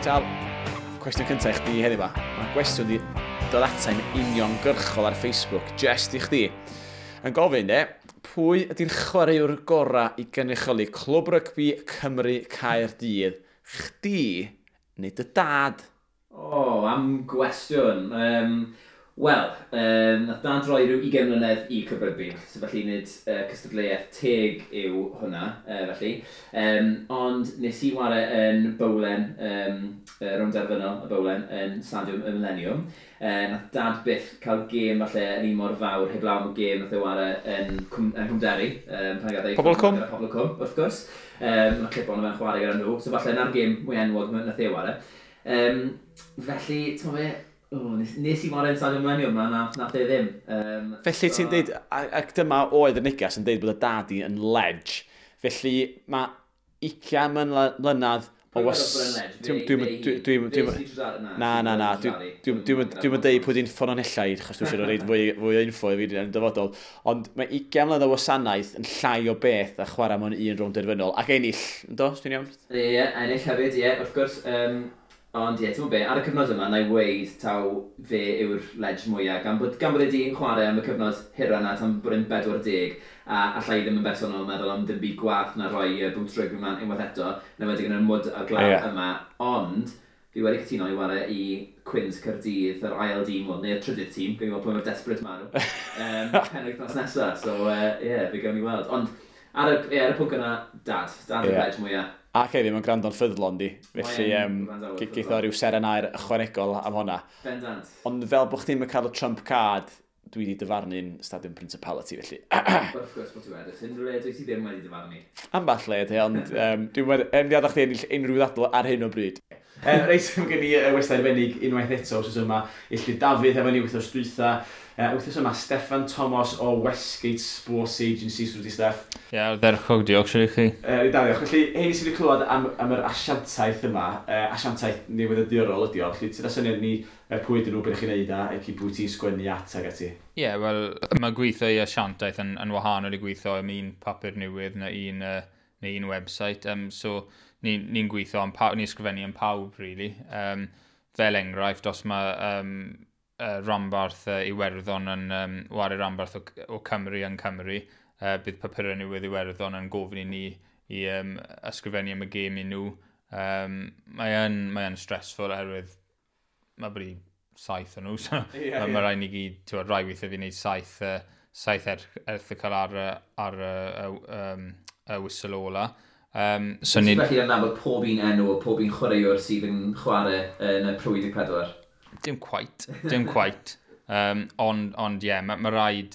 Reit, Al, cwestiwn cyntaf i chdi heddiw ma. Mae gwestiwn di dod atai'n uniongyrchol ar Facebook, just i chdi. Yn gofyn, de, pwy ydy'r chwaraewr gorau i gynrychioli Clwb Rygbi Cymru Caerdydd? Chdi neu dy dad? O, oh, am gwestiwn. Wel, nath dad roi rhyw 20 mlynedd i Clwb Rygbi, so felly nid cystadleuaeth teg yw hwnna, felly. Ond nes i ware yn bowlen, rownd derfynol y bowlen, yn Stadiwm y Millennium. Nath dad byth cael gêm falle yn un mor fawr, heblaw am y gêm nath e ware yn Cwmderi. Pan gath e Pobol y Cwm? Pobol y Cwm, wrth gwrs. Mae clip ono fe'n chwarae gyda nhw, so falle na'r gêm mwy enwog nath e ware. Felly, ti'n fe, oh, nes i ware yn Stadiwm Millennium, na, nath e ddim. Felly ti'n deud, ac dyma oedd y neges yn deud bod y dad i yn ledge. Felly mae 20 mlynedd o was. Na, na, na. Dwi'n deud pwy di'n ffynonellau, achos dwi'n siŵr o reid fwy o info i fi yn y dyfodol. Ond mae 20 mlynedd o wasanaeth yn llai o beth a chwarae mewn un rownd derfynol. Ac ennill, yndo, os dwi'n iawn? Ie, ennill hefyd, ie, wrth gwrs. Ond ie, ti'n be, ar y cyfnod yma, na i weud taw fe yw'r ledge mwyaf, gan bod e di chwarae am y cyfnod hira yna tan bod e'n 40, a allai ddim yn bersonol meddwl am ddim byd gwath na rhoi boots rygbi mlaen unwaith eto, na wedi yn y mwd a'r glaw yma, ond fi wedi cytuno i ware i Cwins Caerdydd, yr ail dîm, wel, neu'r trydydd tîm, gawn ni weld pwy mor desperate maen nhw, penwythnos nesaf, so ie, yeah, fe gawn ni weld. Ond ar y pwnc yna, dad yw'r ledge mwyaf. Ac hefyd, mae'n gwrando'n ffyddlon di. Felly, geith o ryw seren aur ychwanegol am hwnna. Bendant. Ond fel bod chdi'n cael y Trump card, dwi wedi dyfarnu'n Stadiwm Principality, felly. Wrth gwrs bod ti wedi. Unrhyw le dwi ti ddim wedi dyfarnu? Amball le, te, ond dwi'n wedi adael chdi ennill unrhyw ddadl ar hyn o bryd. Reit, mae gen i westai arbennig unwaith eto wrth yma. Illtud Dafydd efo ni wythnos dwytha. Wythnos yma, Steffan Thomas o Westgate Sports Agency, sut wyt ti, Steff? Ie, yeah, ardderchog, diolch, siwr i chi. Da, diolch. Felly, hein sydd wedi clywed am yr asiantaeth yma, asiantaeth newyddiadurol ydi o. Felly, ti'n syniad ni pwy ydyn nhw, beth chi'n neud a ac i pwy ti'n sgwennu at ag ati? Ie, yeah, wel, mae gweithio i asiantaeth yn wahanol i gweithio am un papur newydd neu un website. So, ni'n ni gweithio am pawb, ni'n ysgrifennu am pawb, really. Fel enghraifft, os mae ranbarth Iwerddon yn ware ranbarth o Cymru yn Cymru, bydd papurau newydd Iwerddon yn gofyn i ni i ysgrifennu am y gêm i nhw. Mae yn stressful oherwydd mae bri saith o nhw, so mae rhaid ni gyd, ti'n rhai weithiau fi wneud saith erthygl ar y whistle ola. So ni felly yn nabod pob un enw o pob un chwaraewr sydd yn chwarae yn y Pro 14? Dim quite, dim quite. Ond ie, yeah, mae rhaid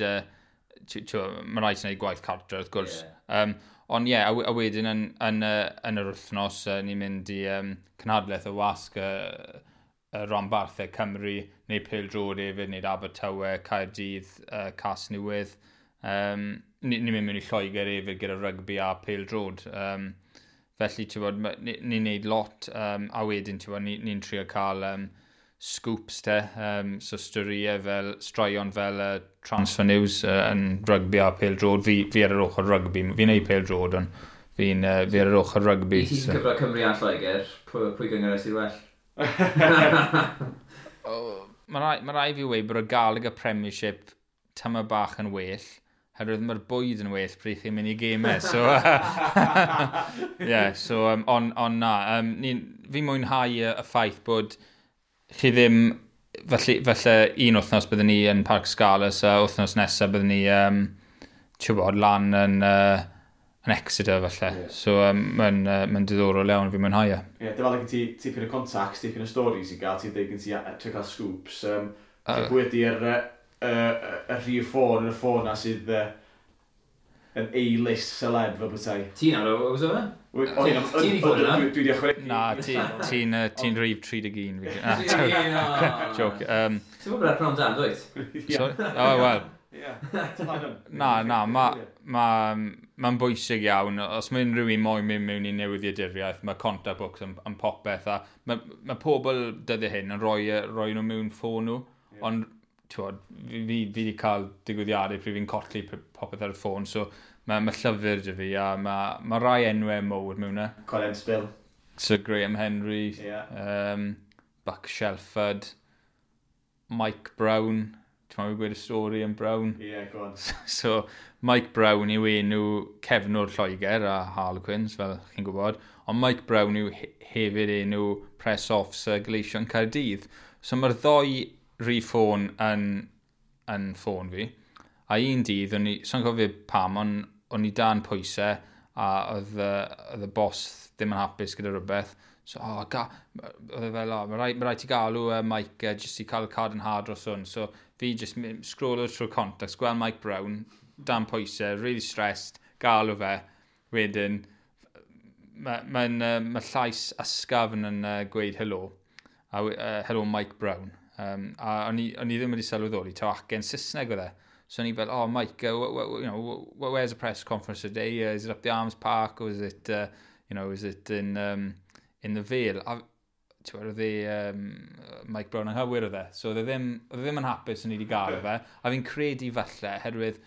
gwneud gwaith cartre, wrth gwrs. Ond ie, yeah, a wedyn yn yr wythnos, ni'n mynd i cynhadledd y wasg y ranbarthau Cymru, neu pêl-droed hefyd, neu Abertawe, Caerdydd, Casnewydd. Ni'n mynd mewn i Lloegr hefyd gyda rygbi a pêl-droed. Felly, ti'n bod, ni'n neud lot, a wedyn, ti'n bod, ni trio cael scoops te, so storïau fel, straeon fel transfer news yn rygbi a pêl-droed. Fi ar yr ochr rygbi, fi'n neud pêl-droed, ond fi ar yr ochr rygbi. I ti'n so cyfro Cymru a Lloegr, pwy gynghrair sydd well? Oh, mae rai fi weud bod y Gallagher Premiership tyma bach yn well, herwydd mae'r bwyd yn well pryd chi'n mynd i gemau. So, yeah, so on na, fi mwynhau y ffaith bod chi ddim, felly un wythnos byddwn ni yn Parc Scarlets a wythnos nesaf byddwn ni, ti'n bod, lan yn Exeter falle. So mae'n diddorol iawn, fi'n mwynhau e. Ie, yeah, dyfa gen ti tipyn o contacts, tipyn o stories i gael, ti'n deud gen ti trio cael scoops. Pwy ydy'r y rhif ffôn yn y ffôn na sydd yn A-list celeb fel bethau? Ti'n ar o, oes o? Ti'n i ffôn yna? Dwi wedi ychwanegu. Na, ti'n rhif 31. Na, joke. Ti'n bod ar prawn dan, dwyt? Sorry? Oh, wel. Na, mae'n ma bwysig iawn. Os mae unrhyw un moyn mynd mewn i newyddiaduriaeth, mae contact books yn popeth. A mae pobl dyddiau hyn yn rhoi nhw mewn ffôn nhw. Ond t'wod, fi wedi cael digwyddiadau pryd fi'n colli popeth ar y ffôn, so mae llyfr 'da fi a mae rai enwau mowr mewn e. Colin Spill. Sir Graham Henry, Buck Shelford, Mike Brown. Ti'n meddwl gweud y stori am Brown? Ie, yeah, go on. So, Mike Brown yw enw cefnwr Lloegr a Harlequins, fel chi'n gwybod. Ond Mike Brown yw hefyd enw press officer Gleision Caerdydd. So mae'r ddoi rhif ffôn yn ffôn fi. A un dydd, o'n i, so'n cofio pam, ond o'n i dan pwysau a oedd y boss ddim yn hapus gyda rhywbeth. So, oh, oedd e fel, oh, mae rhaid ti galw Mike jyst i cael cadarnhad dros hwn. So, fi just scrollo trwy contacts, gweld Mike Brown, dan pwysau, really stressed, galw fe. Wedyn, ma llais ysgafn yn gweud helo. A, "Hello, Mike Brown." A o'n i ddim wedi sylweddoli, taw acen Saesneg oedd e. So o'n i fel, "Oh Mike, where's the press conference today? Is it up the Arms Park or is it, you know, is it in the Vale?" A ti'n oedd e, Mike Brown anghywir oedd e. So oedd e ddim yn hapus o'n i wedi gael fe. A fi'n credu falle, herwydd,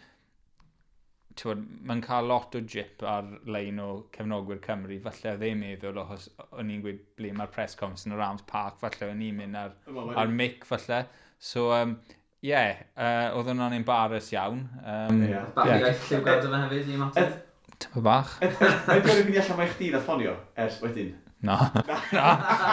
ti'n mae'n cael lot o jip ar-lein o cefnogwyr Cymru. Falle oedd e'n meddwl, achos o'n i'n gweud ble mae'r press conference yn yr Arms Park, falle o'n i'n mynd ar mic falle. So, yeah, oedd hwnna'n embarrass iawn. Bach i iaith lliwgar dyma hefyd i ymateb. Tyma bach. Mae'n dweud mynd i allan mae chdi na ffonio ers wedyn. Na. Na.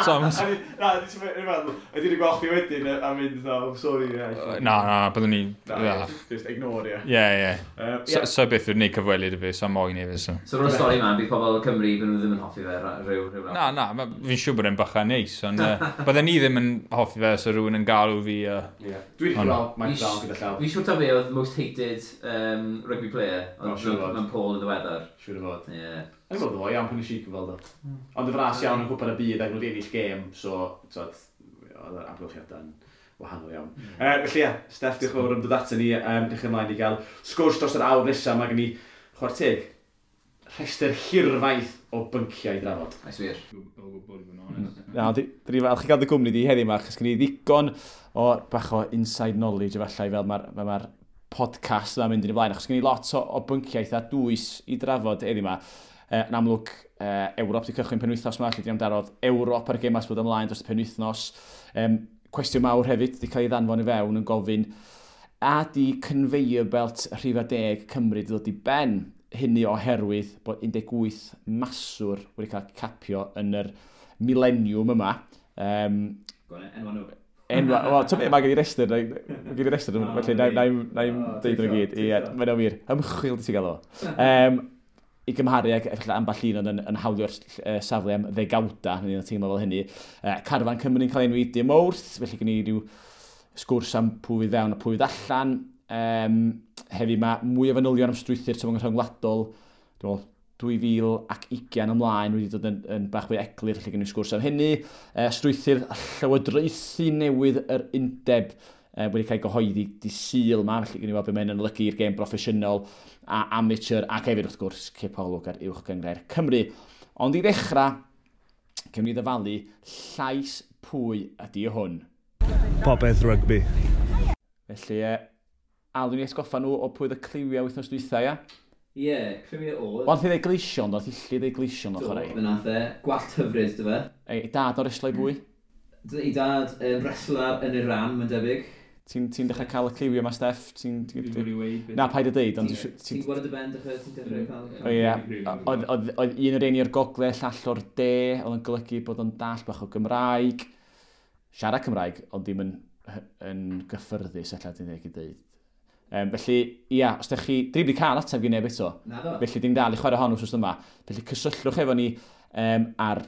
So, Na, dwi'n meddwl, ydy wedi gweld chdi wedyn a mynd, "Oh, sorry." Yeah. Na, byddwn ni. Na, just ignore, ie. Ie. So beth yw'n neud cyfweliad i fi, so moyn i fi. So, so o'r stori yma, bydd pobl Cymru, byd nhw ddim yn hoffi fe rhyw. Na, na, fi'n siŵr bod e'n bachan neis, ond bydden ni ddim yn hoffi fe, so rhywun yn galw fi. Yeah. Dwi wedi gweld Mike Brown gyda llaw. Fi'n siŵr taw fe oedd most hated rugby player, ond mewn poll yn ddiweddar. Siŵr o fod. Ie. Yn gweld o iawn pan nes i gyfweld o. Ond y fras iawn yn Cwpan y Byd ac nhw wedi ennill gêm, so, tyd, oedd yr amgylchiadau'n wahanol iawn. Felly ie, Steff, diolch yn fawr am dod ato ni. Diolch ymlaen i gael sgwrs dros yr awr nesaf. Mae gen i, chwarae teg, rhestr hirfaith o bynciau i drafod. Oes wir. O gwbl, i fod yn onest. Na, dwi falch i gael dy gwmni di heddiw yma, achos gen i ddigon o bach o inside knowledge efallai fel mae'r podcast yma'n mynd yn ei blaen, achos gen i lot o bynciau eitha dwys i drafod heddiw yma. Yn amlwg, Ewrop di cychwyn penwythnos yma, lle di amdarodd Ewrop ar gemau sydd bod ymlaen dros y penwythnos. Cwestiwn mawr hefyd di cael ei ddanfon i fewn yn gofyn, a di conveyor belt rhifa 10 Cymru di ddod i ben? Hynny oherwydd bod 18 maswr wedi cael capio yn yr mileniwm yma. Enwa nhw. Enwa, wel, ti'n meddwl, mae gen i restr, mae gen i restr, felly na i'm deud nhw gyd. Ie, mae'n wir. Ymchwil di ti gael o. I gymharu ag efallai ambell un oedd yn hawlio'r safle am ddegawda, neu yn teimlo fel hynny. Carfan Cymru'n cael enwi dim wrth, felly gen i ryw sgwrs am pwy fydd fewn a pwy fydd allan. Hefyd mae mwy o fanylion am strwythur tymor rhyngwladol, dwi'n meddwl 2020 ymlaen wedi dod yn bach fwy eglur, felly gen i sgwrs am hynny. Strwythur llywodraethu newydd yr undeb wedi cael gyhoeddi di Sul yma, felly gen i weld beth mae'n olygu i'r gêm broffesiynol a amateur, ac hefyd wrth gwrs cipolwg ar Uwch Gynghrair Cymru. Ond i ddechrau, cymryd ni ddyfalu llais pwy ydy hwn. Popeth rygbi. Felly, Al, dwi'n atgoffa nhw o pwy oedd y cliwiau wythnos dwytha, ia? Ie, yeah, cliwiau oedd. Wel, nath i ddeud Gleision, nath i lli ddeud Gleision o'ch Do, chwarae. fe nath e. Gwallt hyfryd, dy fe. Ei dad o'r reslo i bwy? I dad yn wrestler yn Iran, mae'n debyg. Ti'n ti dechrau cael y cliwiau yma, Steff? Dwi'n wedi weud beth. Na, paid a deud, ond Ti'n gweld y ben, dechrau, ti'n dechrau cael O ie, oedd un o'r un o'r gogledd, llall o'r de, oedd yn golygu bod o'n dall bach o Gymraeg, siarad Cymraeg, ond ddim yn gyffyrddus, ella dwi'n dweud i dweud. Felly, ia, os ydych chi, dwi wedi cael ateb gen neb eto, Na ddo. felly dim dal i chwarae hon wrth yma. Felly cysylltwch efo ni ar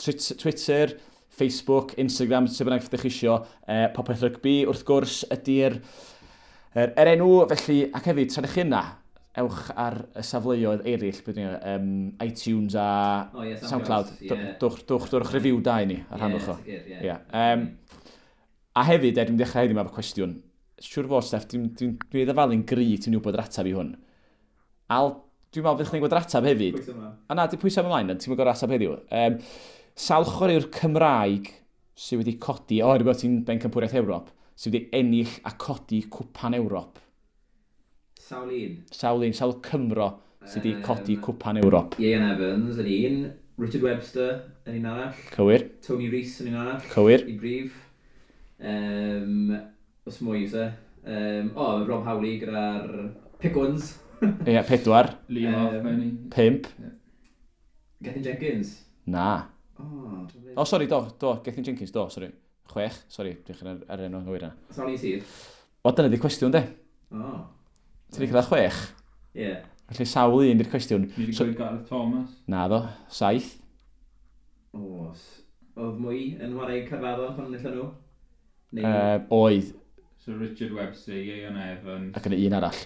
Twitter, Facebook, Instagram, sut bynnag ydych chi isio, Popeth Rygbi, wrth gwrs, ydy'r er enw, felly, ac hefyd, tra ydych chi yna, ewch ar y safleoedd eraill, beth yw, iTunes a O, ie, SoundCloud. Ie. Dwch review da i ni, a rhannwch o. Ie, sicr, ie. Ie. A hefyd, dwi'n dechrau heddiw yma efo cwestiwn. Siwr fod, Steff, dwi ddyfalu'n gry ti'n gwybod yr ateb i hwn. Al, dwi'n meddwl fydd chdi'n gwybod yr ateb hefyd. Pwys yma. A na, di pwysau ymlaen, ti'n gwybod yr ateb heddiw. Sawl chwaraewr Cymraeg sydd wedi codi, o, rhywbeth ti'n bencampwriaeth Ewrop, sydd wedi ennill a codi cwpan Ewrop. Sawl un. Sawl un, sawl Cymro sydd wedi codi cwpan Ewrop. Ieuan Evans yn un. Richard Webster yn un arall. Cywir. Tony Rees yn un arall. Cywir. I brif. Os mwy yw se. O, Rob Howley gyda'r Pick Ones. Ie, yeah, 4. Liam Halfpenny. 5. Gethin Jenkins. Na. Oh, O, sori, do, Gethin Jenkins, do, sori. 6, sori, dwi'n ar, ar enw anghywir yna. Sawl un sydd? O, dyna di cwestiwn, de. O, Ti wedi cyrraedd 6? ie. Yeah. Felly sawl un di'r cwestiwn. Ni wedi So, gweud Gareth Thomas. na ddo, 7. O, oedd mwy yn chwarae Caerfaddon pan enillon nhw? Neu... Oedd, So Richard Webster, Ieuan Evans, ac yn un arall.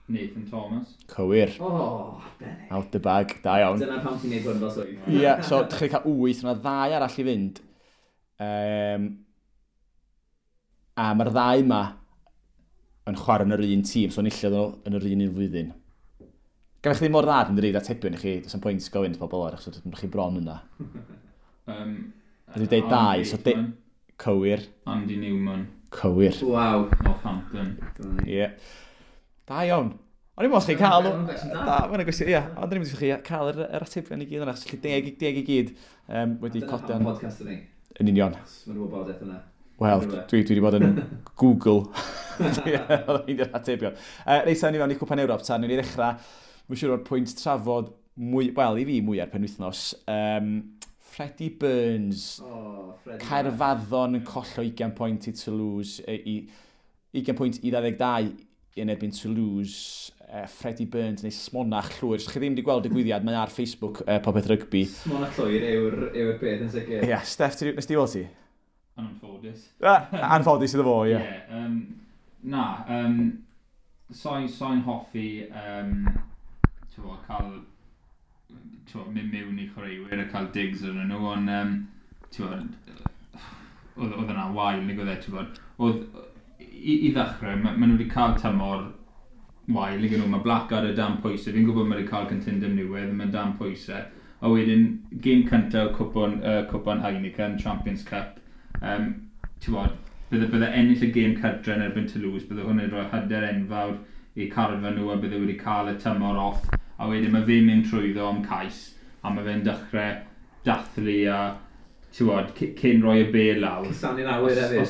Nathan Thomas. Cywir. O, benig. Out the bag, da iawn. Dyna pam ti'n neud hwn fel swydd. Ie, yeah, so dych chi'n cael 8, yna ddau arall i fynd. A mae'r ddau yma yn chwarae yn yr un tîm, so enillodd nhw yn yr un un flwyddyn. Gan chi ddim mor dda dwi'n dweud atebion i chi, does 'am pwynt gofyn wrth bobl o'r achos ydych chi bron yna. A dwi deud dau, so Cywir, Andy Newman, cywir. Waw. Northampton. Ie. Yeah. Da iawn. O'n i'n meddwl chi'n cael... Ma'n gwestiwn da. Da, mae'n gwestiwn, ie. Ond o'n i'n meddwl chi cael yr atebion i gyd yna, achos felly 10 i gyd wedi Dyna codi pam yn podcast yni. yn union. Mae'n wybodaeth yna. Wel, Rhywle. dwi wedi bod yn Google. Oedd hi'n atebion. Reit, ni fewn i Cwpan Ewrop, ta, ni'n i ddechrau, mae'n siŵr o'r pwynt trafod mwy, wel, i fi mwy ar penwythnos. Freddie Burns, O, Freddie. Caerfaddon yn collo 20 pwynt i Toulouse, i 20 pwynt i 22 yn erbyn Toulouse. Freddie Burns neu smonach llwyr. Os chi ddim wedi gweld digwyddiad, mae ar Facebook Popeth Rygbi. Smonach llwyr yw'r beth yn sicr. Ie, yeah, Steph, nes ti weld ti? Anffodus. Ah, anffodus iddo fo, ie. Ie, na, soi'n hoffi, t'mo, cael, t'mo, mynd mewn i chwaraewyr a cael digs arnyn nhw, ond, t'mo, oedd yna wael, nag oedd e, t'mo, oedd, i ddechrau, ma nhw wedi cael tymor wael, nag nhw, mae Blackadder dan pwysau, fi'n gwybod mae wedi cael cytundeb newydd, mae'n dan pwysau, a wedyn, gêm cyntaf cwpan Heineken, Champions Cup, ti'n bydde ennill y gêm cartre yn erbyn Toulouse, bydde hwn yn rhoi hyder enfawr i carfan nhw a bydde wedi cael y tymor off. A wedyn mae fe'n mynd trwyddo am cais, a mae fe'n dechrau dathlu a, ti'n gwbod, cyn rhoi y bel lawr. Cusanu'n awyr hefyd.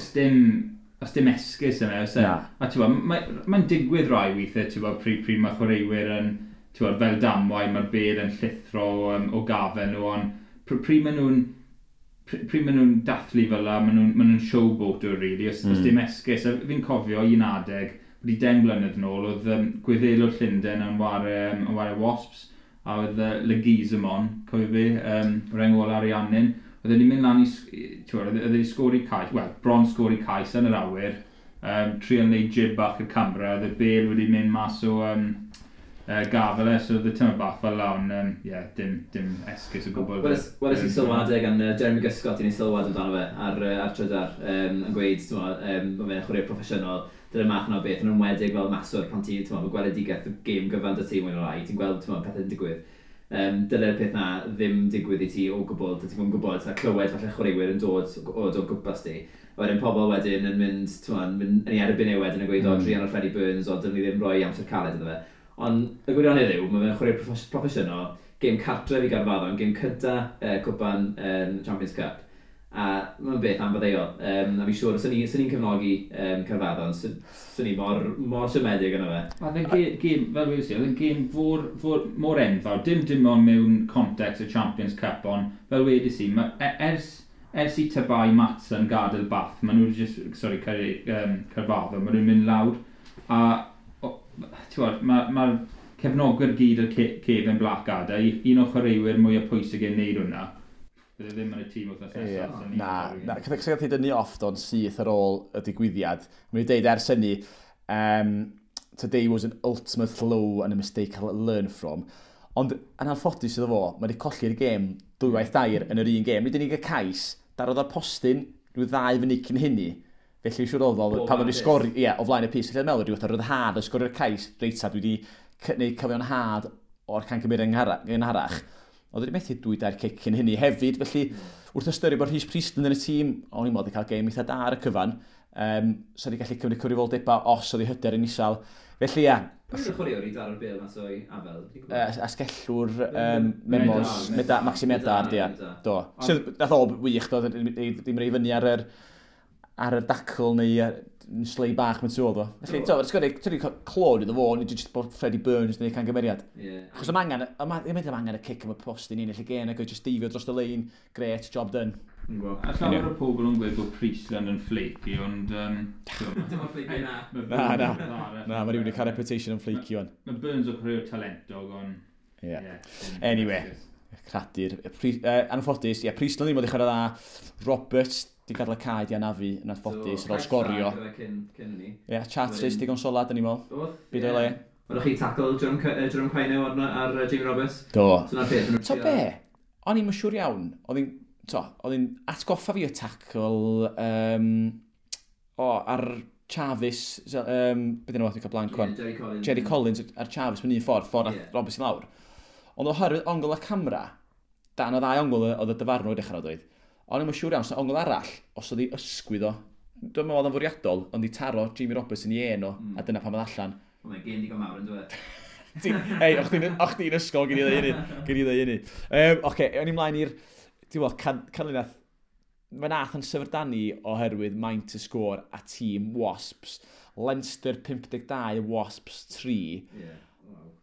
Os dim esgus yna, oes e? Na. A ti'n gwbod, mae'n digwydd rai weithiau, ti'n gwbod, pryd mae chwaraewyr yn, ti'n gwbod, fel damwain, mae'r bel yn llithro o gafel nhw, ond pryd maen nhw'n dathlu fel la, maen nhw'n showboater, really, os dim esgus. A fi'n cofio un adeg, wedi 10 blynedd nôl, oedd Gwyddelwr Llundain yn ware Wasps, a oedd Leguizamon, cofio fi, reng ôl Ariannin, oedd e'n mynd lan i, ti'n gwbod, oedd e'n sgori cais, wel, bron sgori cais yn yr awyr, trial neud jib bach y camera, oedd y bel wedi mynd mas o gafel e, so oedd y tyma bach fel la, ond yeah, dim esgus o gwbl. Weles i sylwadau gan Jeremy Guscott i ni sylwad amdano fe ar Trydar, yn gweud, t'mo, mae fe'n chwaraewr proffesiynol, dyna'r math yna o beth, yn enwedig fel maswr pan ti, t'mo, mae gweledigaeth y gêm gyfan dy ti mwy neu lai, ti'n gweld, t'mo, pethau'n digwydd. Dyle'r peth na ddim digwydd i ti o gwbl, ti'n gwybod, gwybod, a clywed falle chwaraewyr yn dod o gwmpas ti. A wedyn pobl wedyn yn mynd, t'mo, yn mynd yn ei erbyn e wedyn yn gweud, o, druan o'r Freddie Burns, o, dylwn ni ddim rhoi amser caled iddo fe. Ond y gwirionedd yw, mae fe'n chwarae proffesiynol, gêm cartref i Gaerfaddon, gêm cynta cwpan Champions Cup. A mae'n beth anfaddeuol. A fi'n siŵr, os ni'n cefnogi Caerfaddon, swn i mor, mor siomedig yna fe. Oedd e'n gêm, fel wedi oedd e'n gêm mor enfawr, dim ond mewn context y Champions Cup, ond fel wedys i, ers i Tabai Matson gadael Bath, maen nhw just, sorry, Caerfaddon, maen nhw'n mynd lawr, a ti'n gwbod, ma cefnogwyr gyd o'r cefn Blackadder, un o'r chwaraewyr mwyaf pwysig yn neud hwnna. Bydde ddim yn y tîm wythnos nesaf. So ni'n Na, torri. na, cyda gath ei dynnu off do'n syth ar ôl y digwyddiad. Mae'n dweud ers hynny, "Today was an ultimate low and a mistake I'll learn from." Ond yn anffodus iddo fo, mae wedi colli'r gêm dwywaith dair yn yr un gêm. Nid yn unig y cais, darodd o'r postyn rhyw 2 funud cyn hynny. Felly siŵr oedd o, O pan oedd flaen wedi y sgori, ie, o flaen y pyst. Felly dwi'n meddwl, rhyw fath o ryddhad o sgorio'r cais, reit ta, dwi wedi gwneud cyfiawnhad o'r camgymeriad gynharach. Oedd wedi methu dwy dair cic cyn hynny hefyd, felly wrth ystyried bod Rhys Priestland yn y tîm, o'n i'n meddwl wedi cael gêm eitha da ar y cyfan, so wedi gallu cymryd cyfrifoldebau os oedd ei hyder yn isel. Felly ie, Pwy yw'r chwaraewr i daro'r bêl mas o'i afel? Asgellwr Memos, Maxi Medard, ia. Do. Sydd, nath o wych, do, ddim rei fyny ar yr dacl neu slei bach mewn tu ôl, do. Felly, to, ti'n clod iddo fo, nid jyst bod Freddie Burns neu cangymeriad. Achos am angen, am angen y cic am y post i ni ennill y gêm, ac oedd jyst deifio dros y lein, great, job done. A llawer o pobl yn gweud bod Priestland yn flaky, ond Dim ond flaky na. Na, na. Na, mae rhywun wedi cael reputation yn flaky o'n. Mae Burns o chwaraewr talentog, ond Anyway, cradur. Anffodus, ie, yeah, Priestland ddim wedi chwarae dda. Roberts di gadael y cae di anafu yn anffodus ar ôl sgorio. Cyn ni. Ie, yeah, Charteris digon solad yn i'n meddwl. Byd o'i le. Oeddech chi tackle Jerome Kaino ar Jamie Roberts? Do. So na'r peth. To be, o'n i'n siŵr iawn, oedd hi'n atgoffa fi o tackle ar Chavis, beth yna, dwi'n cael blank wan. Jerry Collins. Jerry Collins ar Chavis mewn un ffordd Roberts i lawr. Ond oherwydd ongl y camera, dan o ddau ongl oedd y dyfarnwr dechrau oedd. Ond i'm yn siŵr iawn, so ongl arall, os oedd hi ysgwydd o, dwi'n meddwl oedd o'n fwriadol, ond i taro Jamie Roberts yn ei en o, a dyna pam oedd allan. Mae'n gêm digon mawr yn dweud. Hei, o'ch chdi'n ysgol, gyn i ddweud hynny. Gyn i ddweud hynny. Oce, o'n i mlaen i'r, ti'n gwybod, canlyniad, mae nath yn syfrdanu oherwydd maint y sgôr a tîm Wasps. Leinster 52, Wasps 3. Ie. Wow.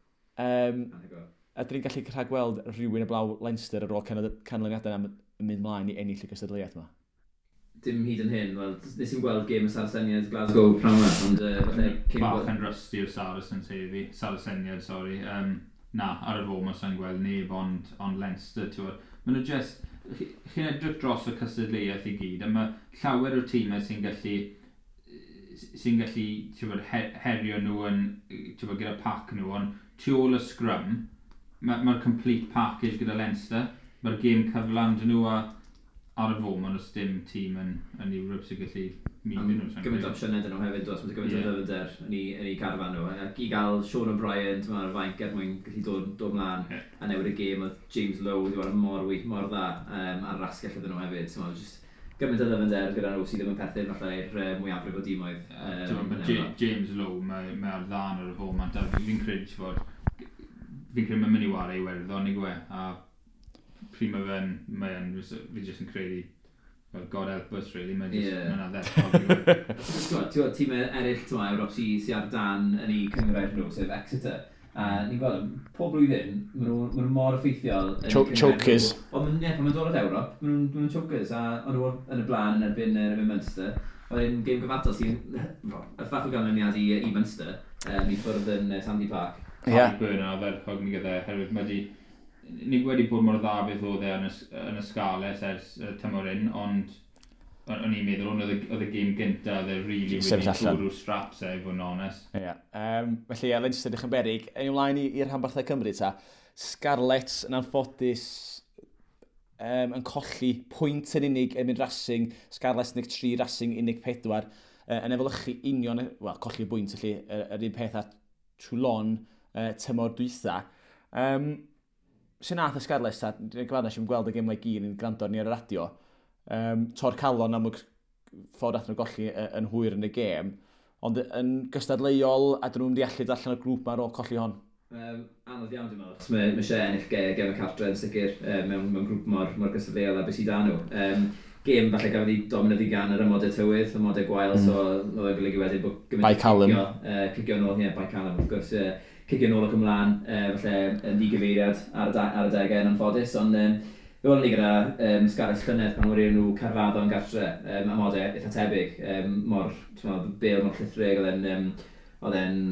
A dyn ni'n gallu rhagweld rhywun heblaw Leinster ar ôl canlyniadau am yn mynd mlaen i ennill y gystadleuaeth yma? Dim hyd yn hyn, wel, nes i'n gweld gêm y Saraceniaid Glasgow prynhawn yma, ond falle cyn Bach yn rusty o'r Saracens heddi. Saraceniaid, sorry. Na, ar y foment sa'n gweld neb, ond Leinster, ti'n gwbod. Maen nhw just... Chi'n edrych dros y cystadleuaeth i gyd, a mae llawer o tîmau sy'n gallu, ti'n gwbod, herio nhw yn, ti'n gwbod, gyda pack nhw, ond tu ôl y scrum, mae'r ma complete package gyda Leinster, mae'r gêm cyflan dyn nhw a ar y foment os dim tîm yn Ewrop sy'n gallu mynd nhw. Sa'n gymaint o opsiynau dyn nhw hefyd, does, mae'n gymaint o ddyfnder yn eu carfan nhw. Ac i gael Sean O'Brien, ti'n meddwl, ar y fainc er mwyn gallu dod mlaen a newid y gêm, oedd James Lowe wedi bod mor wych, mor dda ar yr asgell iddyn nhw hefyd. Ti'n meddwl, just gymaint o ddyfnder gyda nhw sydd ddim yn perthyn falle i'r mwyafrif o dimoedd. Ti'n gwbod, yn mae Ewrop. James Lowe, mae ar ddan ar y foment, a fi'n credu, ti'n gwbod, fi'n credu mae'n mynd i wario Iwerddon i gwe, a pryd mae fe'n, fi jyst yn credu, well, God help us, really, mae'n just, mae'n ardderchog. Ti'n gwbod, tîmau eraill, ti'n gwbod, Ewrop sy ar dan yn eu cynghrair nhw, sef Exeter. A ni'n gweld, pob blwyddyn, ma nhw mor effeithiol yn eu cynghrair Chokers. nhw. Ond ie, pan ma'n dod at Ewrop, ma nhw'n chokers, a o'n nhw yn y blaen yn erbyn Munster. Oedd e'n gêm gyfartal sy'n y ffach o ganlyniad i Munster, i ffwrdd yn Sandy Park. Harry Byrne yn ardderchog ni gyda, oherwydd mae di, ni wedi bod mor dda beth oedd e yn y Scarlets ers tymor un, ond o'n i'n meddwl, ond oedd y gêm gynta, oedd e really Sefyll wedi allan. bwrw'r straps e, i fod yn onest. Ie. Felly, ie, Leinster ddech yn berig. Ein ymlaen i'r rhanbarthau Cymru ta. Scarlets yn anffodus yn colli pwynt yn unig yn mynd Racing. Scarlets 13, Racing 14. Yn efelychu union, wel, colli y bwynt, felly, yr un peth â Toulon tymor dwytha. Sy'n nath y Scarlets ta, dwi'n gyfadda nes i'm gweld y gemau gyd yn gwrando arni ar y radio. Tor calon am y ffordd athyn nhw golli yn hwyr yn y gêm. Ond yn gystadleuol, a dyn nhw'n mynd i allu dod allan o'r grŵp ma ar ôl colli hon. Anodd iawn dwi'n meddwl, achos mae eisiau ennill gem y cartre yn sicr mewn grŵp mor gystadleuol a beth sydd da nhw. Gêm falle gafodd ei dominyddu gan yr amodau tywydd, amodau gwael, so oedd e'n golygu wedyn bod gymaint By o Callum. cicio nôl, ie, by Callum, wrth gwrs, cicio nôl ac ymlaen, falle yn ddigyfeiriad ar y degau yn anffodus, ond fe welon ni gyda Scarlets llynedd pan wedi nhw Caerfaddon gartre, amodau eitha tebyg, mor, ti'n meddwl, bêl mor llithrig, oedd e'n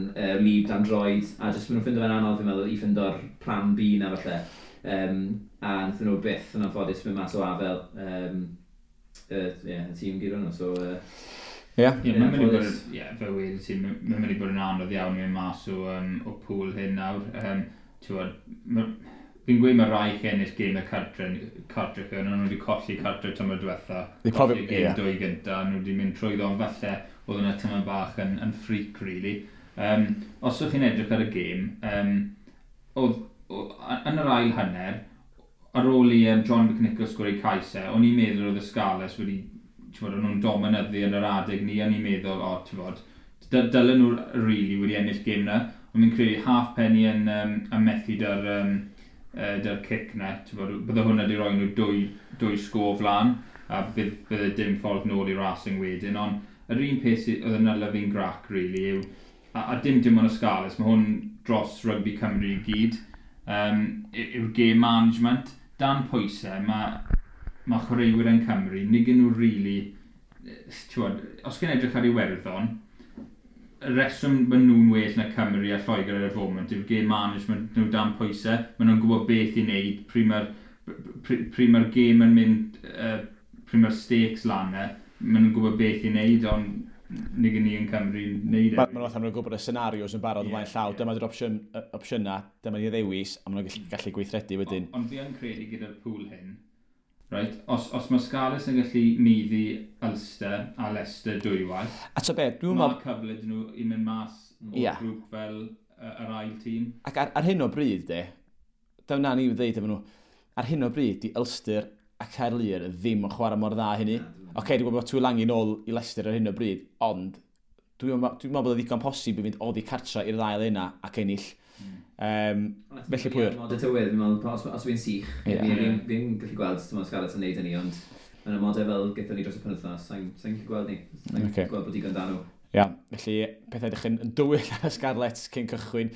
wlyb dan droed, a jyst maen nhw'n ffindo fe'n anodd, fi'n meddwl, i ffindo'r plan B na falle. A wnaethon nhw byth yn anffodus mynd mas o afel yeah, y tîm gyda nhw, so Ie. Ie, mae'n mynd i bod, anffodus. ie, fel wedi ti, mae'n mynd i bod yn anodd iawn i mynd mas o pŵl hyn nawr. Ti'n gwbod, fi'n gweud mae rai chi ennill gêm y cartre chi, ond nhw wedi colli cartre tymor diwetha. They Colli gêm dwy gynta, nhw wedi mynd trwyddo, ond falle oedd yna tymor bach yn freak, really. Os ydych chi'n edrych ar y gêm, oedd, yn yr ail hanner, ar ôl i John McNicholl sgori cais e, o'n i'n meddwl oedd y Scarlets wedi, ti'n bod, o'n nhw'n dominyddu yn yr adeg ni, o'n i'n meddwl, o, ti'n bod, Dylen nhw really wedi ennill gêm na, ond fi'n credu Halfpenny yn methu da'r cic na. Bydde hwnna wedi rhoi nhw dwy sgôr flan, a bydde dim ffordd nôl i Racing wedyn, ond yr un peth sydd oedd yn hala fi'n grac, really, yw, a dim ond y Scarlets, mae hwn dros rygbi Cymru i gyd, yw'r game management. Dan pwysau, mae chwaraewyr yn Cymru, nid nhw really, t'wod, os gen edrych ar Iwerddon, y reswm maen nhw'n well na Cymru a Lloegr ar y foment yw'r game management nhw dan pwysau. Maen nhw'n gwybod beth i wneud, pryd mae'r game yn mynd, pryd mae'r stakes lan e, maen nhw'n gwybod beth i wneud, ond nid ni yn Cymru yn wneud e. Maen nhw'n fatha maen nhw'n gwybod y scenarios yn barod ymlaen llaw. Dyma di'r opsiynau, dyma ni ddewis, a maen nhw'n gallu gweithredu wedyn. Ond fi yn credu gyda'r pŵl hyn, right, os mae Scarlets yn gallu maeddu Ulster a Leicester dwywaith, A ta be, dwi'n mae meddwl, cyfle dyn nhw i mynd mas o'r grŵp fel yr ail tîm. Ac ar hyn o bryd, de, dyna ni ddeud efo nhw, ar hyn o bryd, di Ulster a Caerlŷr ddim yn chwarae mor dda hynny. Oce, okay, dwi'n gwybod bod Tuilagi nôl i Leicester ar hyn o bryd, ond dwi'n meddwl bod o ddigon posib i fynd oddi cartra i'r ddau yna ac ennill. Felly pwy yw'r? Mod y tywydd, fi'n meddwl, os fi'n sych, fi'n gallu gweld ti'n Scarlets yn neud hynny, ond yn y modau fel gyda ni dros y penwythnos, sa'n gallu gweld ni. Sa'n gweld bod digon da nhw. Ia, felly pethau edrych yn dywyll ar y Scarlets cyn cychwyn,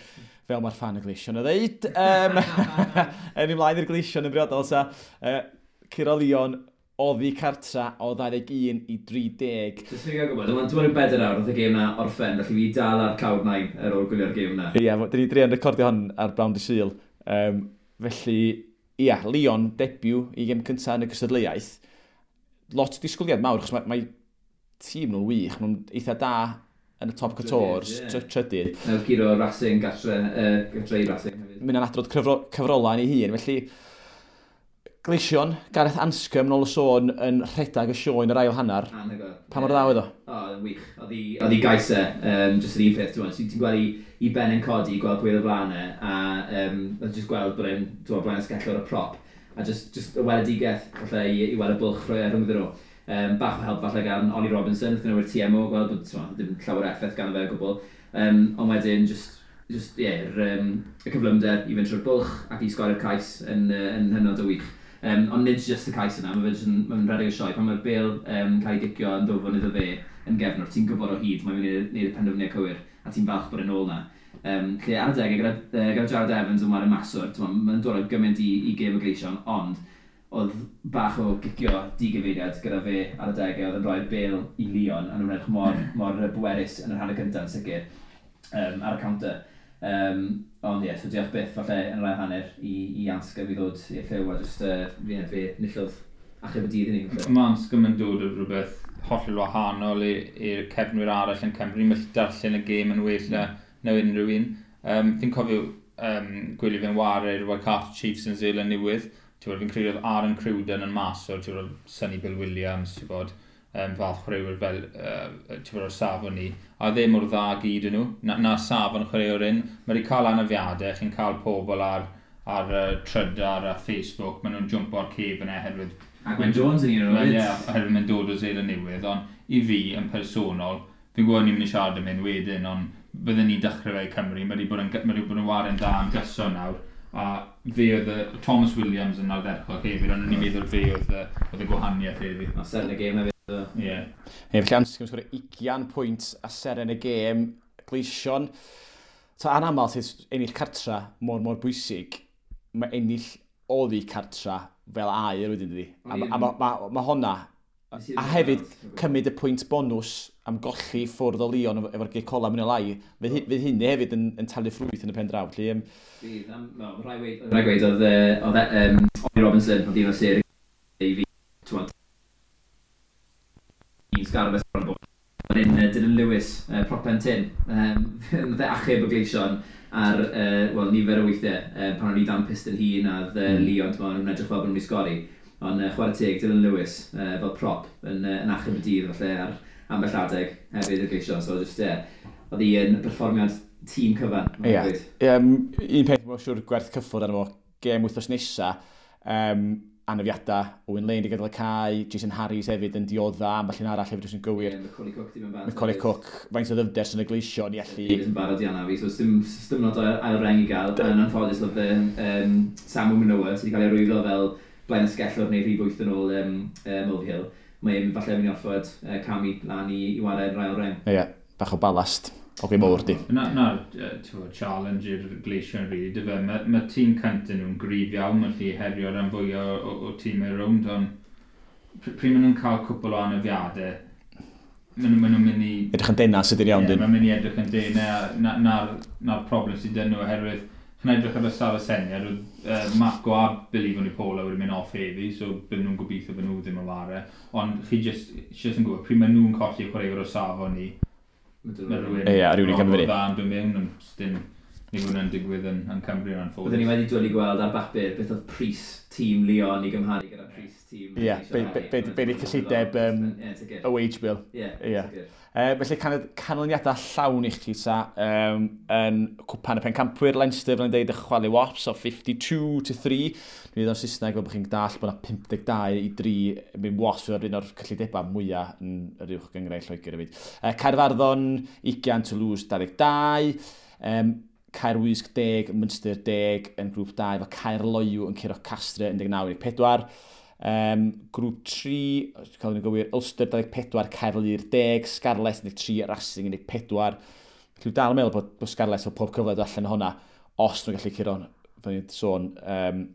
fel mae'r fan y Gleision yn ddeud. Yn ymlaen i'r Gleision yn briodol, ta. Curo Lyon oddi cartra o 21 i 30. Jyst fi'n gael gwybod, dwi'n meddwl 4 awr oedd y gêm na orffen, felly fi dal ar cloud nine ar ôl gwylio'r gêm na. Ia, dyn ni druan recordio hon ar brawn dy Sul. Felly, ia, Lyon debut i gêm cyntaf yn y gystadleuaeth. Lot o disgwyliad mawr, achos mae tîm nhw'n wych, maen nhw'n eitha da yn y top 14, trydydd. Nawr guro Racing gatre, gatre i Racing hefyd. Mynd yn adrodd cyfrolau yn ei hun, felly Gleision, Gareth Anscombe, nôl y sôn, yn rhedeg y sioe yn yr ail hanner. Anhygoel. Pa mor dda oedd o? O, yn wych. Oedd hi gais e, jyst yr un peth, ti'n ti'n gweld i ben yn codi, gweld pwy oedd o flaen e, a oedd jyst gweld bod e'n, ti'n blaen asgellwr y prop, a just y weledigaeth, falle, i weld y bwlch rhoi rhwngddyn nhw. Bach o help falle gan Ollie Robinson, wrth nhw'r TMO, gweld bod ti'n ddim llawer o effaith gan fe o gwbl. Ond wedyn, just, yeah, y cyflymder i fynd trwy'r bwlch ac i sgorio'r cais yn hynod o wych. Ond nid just y cais yna, mae fe jyst yn, mae'n rhedeg y sioe. Pan mae'r bêl cael ei gicio yn ddwfn iddo fe yn gefnwr, ti'n gwybod o hyd, mae'n mynd i wneud y penderfyniad cywir, a ti'n falch bod e'n ôl na. Lle ar y degau, gyda Jared Evans yn wario maswr, mae'n dod â gymaint i gêm y Gleision, ond oedd bach o gicio digyfeiriad gyda fe ar y degau, oedd yn rhoi'r bêl i Lyon, a nhw'n edrych mor, mor bwerus yn yr hanner cyntaf yn sicr, ar y counter. Ond ie, yeah, so diolch byth falle yn yr ail hanner i Anscombe i ddod i'r llyw a just, fe nillodd achub y dydd i ni, falle. Mae Anscombe yn dod o rhywbeth hollol wahanol i'r cefnwyr arall yn Cymru. Mae'n darllen y gêm yn well na unrhyw un. Fi'n cofio gwylio fe'n ware i'r Waikato Chiefs yn Zealand Newydd. Ti'n gwbod, fi'n credu oedd Aaron Cruden yn maswr, ti'n gwbod, Sonny Bill Williams, ti'n gwbod, fath chwaraewyr fel, ti'n gwbod, o'r safon ni. A ddim mor dda gyd yn nhw, na safon chwaraewr un. Mae wedi cael anafiadau, chi'n cael pobl ar Trydar a Facebook, maen nhw'n jumpo ar cefn e oherwydd A Gwen Jones yn un o'r Wel, nhw ie, hefyd. oherwydd mae'n dod o Seland Newydd, ond i fi, yn personol, fi'n gwybod ni'n mynd i siarad am hyn wedyn, ond bydden ni'n dechrau fe i Cymru, mae wedi bod yn ware'n dda am gyson nawr, a fe oedd y, Thomas Williams yn ardderchog hefyd, ond o'n i'n meddwl fe oedd y gwahaniaeth hefyd. A seren y gêm hefyd. Ie. Yeah. Ie, felly Anscombe sgorio 20 pwynt a seren y gêm, Gleision. Ta anaml sydd ennill cartra mor mor bwysig, mae ennill oddi cartra fel aur wedyn dydi. A ma honna, a hefyd cymryd y pwynt bonws am golli ffwrdd o Lyon efo'r gic ola mynd o lai, fydd hynny hefyd yn talu ffrwyth yn y pen draw. Felly, Bydd, no, rhaid gweud, oedd Ollie Robinson, oedd un o sêr i fi, ti'n un Scarlets bron bod. Ond un Dylan Lewis, prop pen tyn, nath e achub y Gleision ar, wel, nifer o weithiau, pan o'n i dan pyst yn hun a oedd Lyon, ti'n nhw'n edrych fel bod nhw'n mynd i sgori. Ond chwarae teg, Dylan Lewis, fel prop, yn achub y dydd, falle, ar ambell adeg hefyd y Gleision. So, just, yeah, oedd hi yn perfformiad tîm cyfan, mae'n gweud. Un peth mae'n siŵr gwerth cyffwrdd arno fo, gêm wythnos nesa, anafiadau, Owen Lane wedi gadael y cae, Jason Harries hefyd yn diodda, ambell un arall hefyd os yn gywir. Yeah, Macaulay Cook di mynd bant. Macaulay Cook, faint o ddyfnder sy'n y Gleision i allu. Yn barod i anafu, so dim lot o ail reng i gael. Yn anffodus oedd Samu Manoa sydd wedi cael ei arwyddo fel blaen ysgellwr neu rhif 8 yn ôl Mulvihill. Mae'n falle mynd i orfod camu lan i ware'r ail reng. Ie, yeah, bach o balast. Oge mowr di. Na, challenge i'r Gleision rili, dy fe. Mae tîm cyntaf nhw'n gryf iawn, mae'n lli herio rhan fwyaf o tîmau rownd, ond pryd maen nhw'n cael cwpl o anafiadau, maen nhw'n mynd i edrych yn dena sydd yn iawn, dyn. Mae'n mynd i edrych yn dena, na'r problem sydd dyn nhw, oherwydd chi'n edrych ar y Saraceniad, oedd Marco a Billy Vunipola wedi mynd off heddi, so bydden nhw'n gobeithio bod nhw ddim yn ware. Ond chi just yn gwybod, pryd maen nhw'n colli chwaraewr o safon ni, mae rhywun ie, rhywun i gymryd fyny. Dda yn dod mewn, ond dim ni fod yn digwydd yn Cymru yn anffodus. Byddwn ni wedi dwlu gweld ar bapur beth oedd pris tîm Lyon i gymharu gyda pris tîm. Ie, be di cyllideb y wage bill. Ie. Felly canlyniadau llawn i chdi ta yn cwpan y pencampwyr Leinster, fel yn deud, y chwalu Wasps o 52-3. Dwi'n dweud o'n Saesneg fel bod chi'n dall bod yna 52-3 mynd Wasps yw'r un o'r cyllidebau mwyaf yn yr uwch gynghrair Lloegr hefyd. Caerfaddon 20, Toulouse 22. Caerwysg 10, Munster 10 yn grŵp 2, efo Caerloyw yn curo Castre 19-14. Grŵp 3, cael yn gywir, Ulster 24, Caerlŷr 10, Scarlets 13, Racing 14. Dwi'n dal yn meddwl bod Scarlets efo pob cyfle dod allan o hwnna, os nhw'n gallu curo, fel ni'n sôn,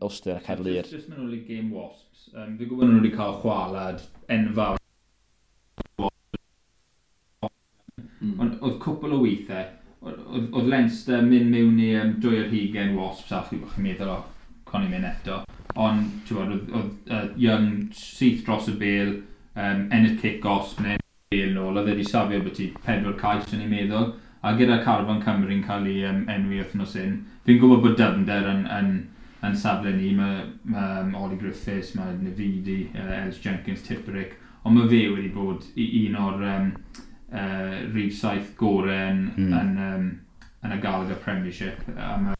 Ulster a Caerlŷr. Just mynd ôl i game Wasps. Fi'n gwybod nhw wedi cael chwalad enfawr. Ond oedd cwpl o weithiau, oedd Leinster mynd mewn i 22 Wasps a chi'n meddwl, o, con i'n mynd eto. Ond, ti'n gwybod, oedd Young syth dros y bêl, ennill kick-offs, neu bêl nôl, oedd wedi safio byti 4 cais yn ei meddwl. A gyda Carfan Cymru'n cael ei enwi wythnos hyn, fi'n gwybod bod dyfnder yn safle ni, mae Ollie Griffiths, mae Navidi, Ellis Jenkins, Tipuric, ond mae fe wedi bod un o'r rhif 7 gorau yn y Gallagher Premiership am y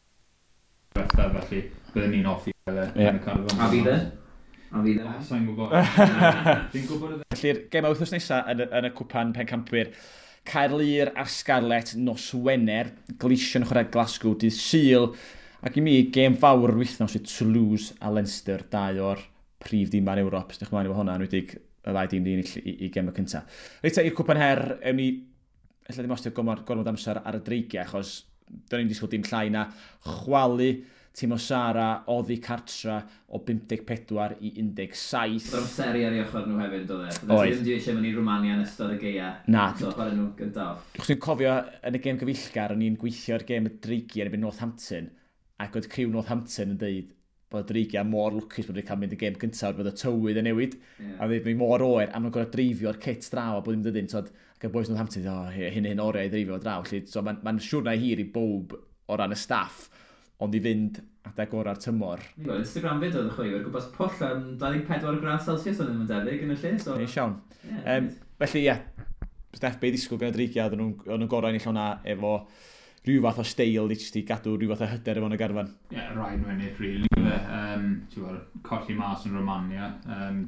diwethaf, felly byddwn ni'n hoffi fel yn y carfan. A fydd e? A fydd e? Sa'n gwybod. Fi'n gwybod. Felly'r gem wythnos nesaf yn y cwpan pencampwyr, Caerlŷr a'r Scarlets nos Wener, Gleision chwarae Glasgow dydd Sul, ac i mi gêm fawr yr wythnos yw Toulouse a Leinster, dau o'r prif dîmau yn Ewrop. Ydych chi'n efo hwnna, yn enwedig y ddau dîm di ennill i gem y cyntaf. Reit, i'r cwpan her, ewn ni, ella ddim ostio gormod amser ar y dreigiau, achos do'n i'n disgwyl dim llai na chwalu tîm o Sara oddi cartra o 54 i 17. Oedd amseru ar ei ochr nhw hefyd, doedd e? Oedd. Ddim eisiau mynd i Romania yn ystod y gaea. Na. So, chwarae nhw gyntaf. Chos dwi'n cofio yn y gêm gyfeillgar, o'n i'n gweithio ar gêm y dreigiau yn erbyn Northampton, ac oedd criw Northampton yn deud bod y dreigiau mor lwcus bod wedi cael mynd y gêm gyntaf, bod y tywydd yn newid, a oedd mi mor oer, a maen nhw'n gorfod dreifio'r kit draw a bod ddim dydyn, so, ac y boys Northampton, o, hyn oriau i dreifio draw. Felly, so, mae'n siwrna hir i bob o ran y staff, ond i fynd adeg ora'r tymor. Instagram fyd oedd y chwaraewyr, gwmpas pwll am 24 gradd Celsius oedd ddim yn debyg yn y lle. So Neis iawn. Felly, ie, Steph, be ddisgwyl gan y dreigiau, oedden nhw'n gorau ennill hwnna efo rhyw fath o steil i jyst i gadw rhyw fath o hyder efo yn y garfan. Ie, yeah, rhaid nhw ennill, really. Colli mas yn Romania.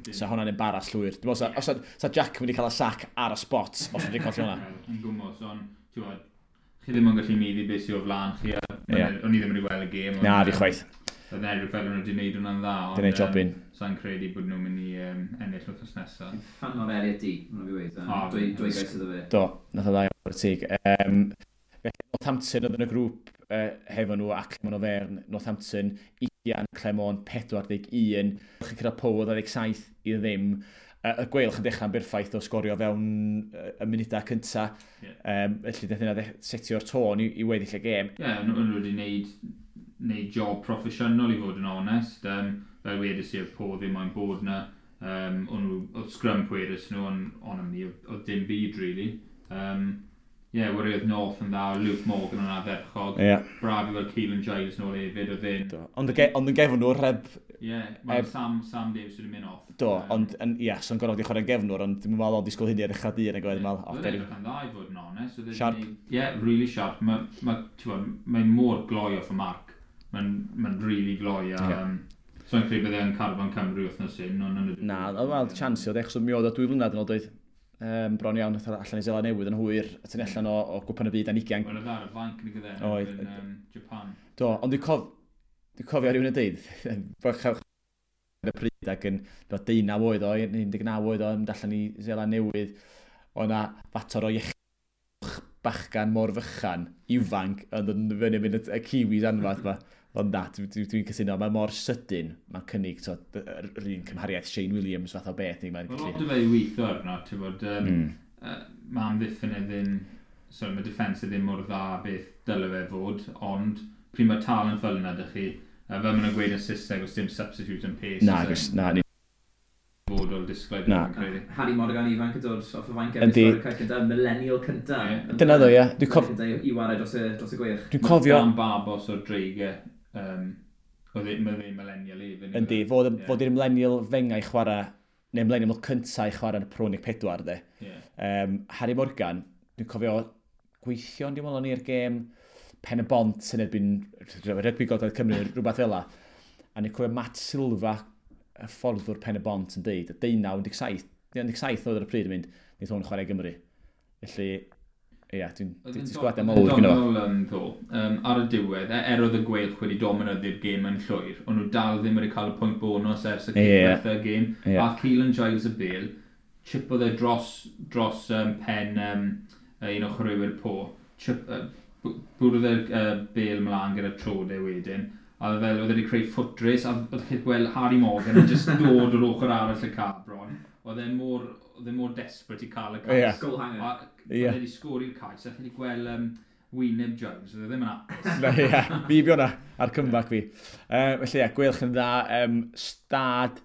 Sa hwnna'n embarrass llwyr. Dwi'n meddwl, sa Jack wedi cael y sac ar y spot os wedi colli hwnna. Yn gwmws, ond ti'n gwybod, chi ddim yn gallu meiddi beth sydd o flaen chi. O'n i ddim wedi gweld y gêm. Na, fi chwaith. Oedd yn edrych fel nhw wedi gwneud hwnna'n dda. Di wneud jobyn. Sa'n credu bod nhw'n mynd i ennill wythnos nesaf. Fan o'r Elliot D, mae'n fi weid. Dwy gais iddo fe. Do, nath o dda o'r teg. Northampton oedd yn y grŵp hefo nhw a Clermont Auvergne. Northampton, 20, Clermont 41. Chi'n cyrraedd Pow 27 i ddim. Y Gweilch yn dechrau'n berffaith o sgorio fewn y munudau cyntaf. Felly, daeth hynna setio'r tôn i weddill y gêm. Ie, yeah, nhw wedi gwneud job proffesiynol i fod yn onest. Fel wedys i, oedd Po ddim moyn bod na. Oedd scrum pwerus nhw, ond am ni, oedd dim byd, really. Ie, wari oedd North yn dda, Luke Morgan yn ardderchog. Yeah. Braf i weld Keelan Giles nôl hefyd, oedd e'n Ond yn gefnwr, heb Ie, mae Sam Davies wedi mynd off. Do, ond, ie, so'n gorfod i chwarae'n gefnwr, ond dwi'n meddwl o'n disgwyl hynny ar ddechrau dydd, ac oedd yn meddwl, Oedd edrych yn dda i fod yn onest. Sharp. Ie, really sharp. Mae'n mor gloi off y marc. Mae'n really gloi, a So'n credu bydde yn carfan Cymru wythnos hyn, ond yn y Na, wel, chance oedd, achos mi oedd o 2 flynedd yn ôl doedd. Bron iawn, nath o allan i Seland Newydd yn hwyr, a tynnu allan o Gwpan y Byd dan 20. Wel, oedd ar y fainc yn gyda Oedd. yn Japan. Do, ond dwi'n cofio rhywun yn deud, bod y pryd ac yn 19 oed o, 19 oed o, yn mynd allan i Seland Newydd, o na fater o iechyd bachgan mor fychan, ifanc, yn dod yn fyny mynd y Kiwis anfath ma. Ond na, dwi cytuno, mae mor sydyn, mae'n cynnig so, yr un cymhariaeth Shane Williams fath o beth. Mae'n Wel, gallu. lot o fe i weithio arno, ti'n bod, mae amddiffyn e ddim, sorry, mae defence e ddim mor dda beth dyle fe fod, ond pryd mae talent fel yna dych chi, fel maen nhw'n gweud yn Saesneg, os dim substitute yn pace. Na, agos, na, ni, Fod o'r disglair, Na. dwi'n credu. Harry Morgan ifanc yn dod off y fainc Yndi. efo cais cyntaf, millennial cyntaf. Ie. Dyna ddo, ie. I wario dros y Gweilch. Dwi'n cofio, Dan Babos o'r Dreigau, oedd mae fe'n millennial hefyd. Yndi, fod i'r millennial fengau chwarae, neu millennial cyntaf i chwarae yn y Pro 14, de. Ie. Harry Morgan, dwi'n cofio gweithio yn diwedd o'n i'r gêm Pen y Bont yn erbyn Rygbi Gogledd Cymru, rhywbeth fel la. A ni'n cofio Matt Silva, y fforddwr Pen y Bont yn deud, y 19, 17, 17 oedd ar y pryd yn mynd, wneith hwn chwarae i Gymru. Felly, ie, dwi'n dwi disgwyliadau mawr gyda fo. Doniol ddo, ar y diwedd, er oedd y Gweilch wedi dominyddu'r gêm yn llwyr, ond nhw dal ddim wedi cael y pwynt bonus ers y diwedd y gêm. A Keelan Giles y bêl, chipodd e dros pen un o chwaraewyr Po, chip, bwrdd e'r bêl mlaen gyda trod e wedyn, a oedd fel, oedd e wedi creu foot race, a oedd chi'n gweld Harry Morgan yn just dod o'r ochr arall y cae bron. Oedd e mor desperate i cael y cais. Goal hanger. A oedd e wedi sgori'r cais, a chi wedi gweld wyneb Giles, oedd e ddim yn hapus. Na, ie, fi fi hwnna, ar comeback fi. Felly, ie, Gweilch yn dda. Stad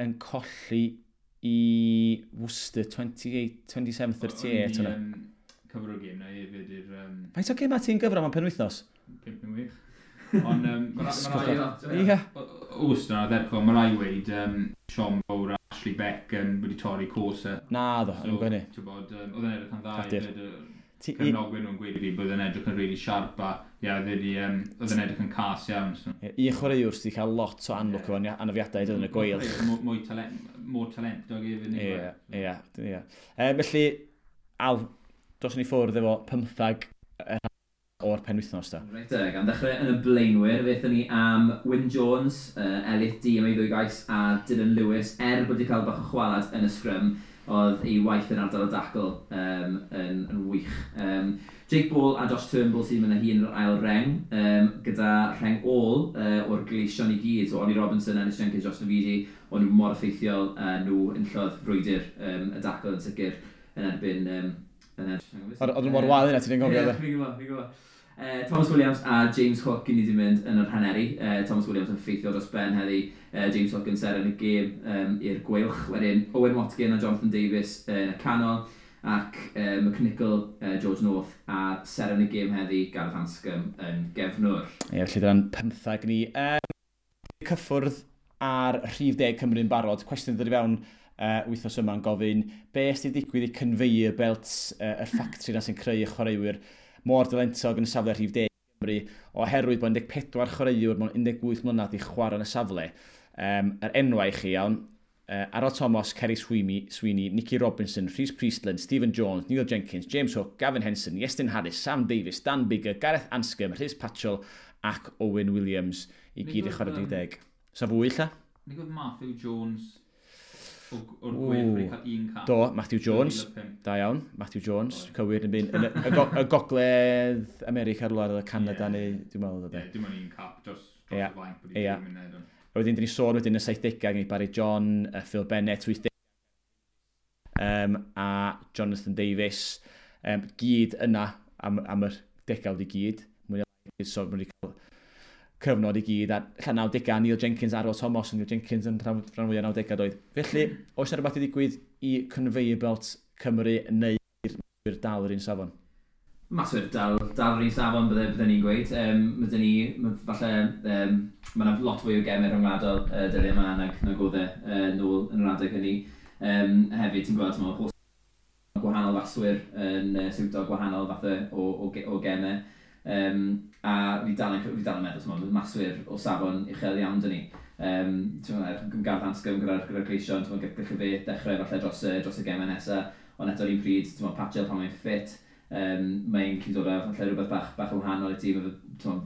yn colli i Worcester 28, 27-38. O'n i, hwnna. Cyfro gêm na hefyd i'r Faint o gêm ti'n gyfro mewn penwythnos? 5 neu 6. Ond ma' Ie. Worcester na ddechrau, mae rai weid, Sean Bowr a Ashley Beck wedi torri coes e. Na, ddo, yn gwneud hynny. Ti'n bod, oedd e'n edrych yn dda Cradur. hefyd. Ti Cefnogwyr nhw'n gweud i fi bod e'n edrych yn really sharp a ie, oedd e'n edrych yn cas iawn. So. Ie, un chwaraewr sydd wedi cael lot o anlwc efo anafiadau dod yn y Gweilch. Mwy talentog hefyd. nag yw Ie, e? ie, ie. Felly, Al, dos ni ffwrdd efo 15 o'r penwythnos da. Reit, gan ddechrau yn y blaenwyr, fe ni am Wyn Jones, Elliot Dee am ei ddwy gais, a Dylan Lewis, er bod wedi cael bach o chwalad yn y sgrym, oedd ei waith yn ardal y dacl yn wych. Jake Ball a Josh Turnbull sy'n mynd â hi yn yr ail reng, gyda rheng ôl o'r Gleision i gyd. So Ollie Robinson, Ellis Jenkins, Josh Navidi, o'n nhw mor effeithiol, nhw enillodd frwydr y dacl yn sicr yn erbyn. Yn erbyn Oedd nhw mor wael yna, ti'n gofio, Ie, de? fi'n gwybod, fi'n gwybod. Thomas Williams a James Hook i ni wedi mynd yn yr haneri. Thomas Williams yn ffeithiol dros ben heddi. James Hook yn seren y gêm i'r Gweilch. Wedyn Owen Watkin a Jonathan Davies yn y canol. Ac McNichol, George North a seren y gêm heddi, Gareth Anscombe yn gefnwr. Ie, felly dyna'n 15 ni. Cyffwrdd ar rhif 10 Cymru'n barod. Cwestiwn ddod i fewn wythnos yma'n gofyn be sydd wedi digwydd i conveyor belts, y ffactri na sy'n creu y chwaraewyr mor dalentog yn y safle rhif 10 Cymru, oherwydd bod 14 chwaraewr mewn 18 mlynedd i chwarae yn y safle. Yr enwau i chi iawn, Aaron Thomas, Kerry Sweeney, Nicky Robinson, Rhys Priestland, Stephen Jones, Neil Jenkins, James Hook, Gavin Henson, Iestyn Harris, Sam Davies, Dan Biggar, Gareth Anscombe, Rhys Patchell ac Owen Williams i gyd i chwarae 10. So fwy lla? Nid oedd Matthew Jones o'r Gweilch wedi cael un cap? Do, Matthew Jones. 2005. Da iawn, Matthew Jones, cywir yn byn, yn y Gogledd America rhywle, oedd y Canada neu, dwi'n meddwl oedd e. Ie, dim ond un cap dros y fainc bod i ddim yn neud. A wedyn, dyn ni sôn wedyn y 70au, gen i Barry John, Phil Bennett, 80 a Jonathan Davies, gyd yna am yr degawd i gyd. Mwy neu lai, so maen nhw wedi cael cyfnod i gyd, a ella 90au, Neil Jenkins, Arwel Thomas, Neil Jenkins yn rhan fwyaf 90au doedd. Felly, oes yna rhywbeth i ddigwydd i conveyor belt Cymru neu'r dal yr un safon? Maswyr dal yr un safon, bydde ni'n gweud. Ma' 'da ni, falle, ma' 'na lot fwy o gemau rhyngwladol dyddiau yma nag oedd e nôl yn yr adeg hynny. Hefyd, ti'n gweld, mae holl gwahanol faswyr yn siwto gwahanol fathau o gemau. A fi dal yn meddwl, t'mod, maswyr o safon uchel iawn dyn ni. Gareth Anscombe gyda'r Gleision, ti'n gallu fe dechrau falle dros y gemau nesaf, ond eto'r un pryd, ti'n Patchell pan mae'n ffit, mae'n gallu dod â falle rhywbeth bach yn wahanol i tîm,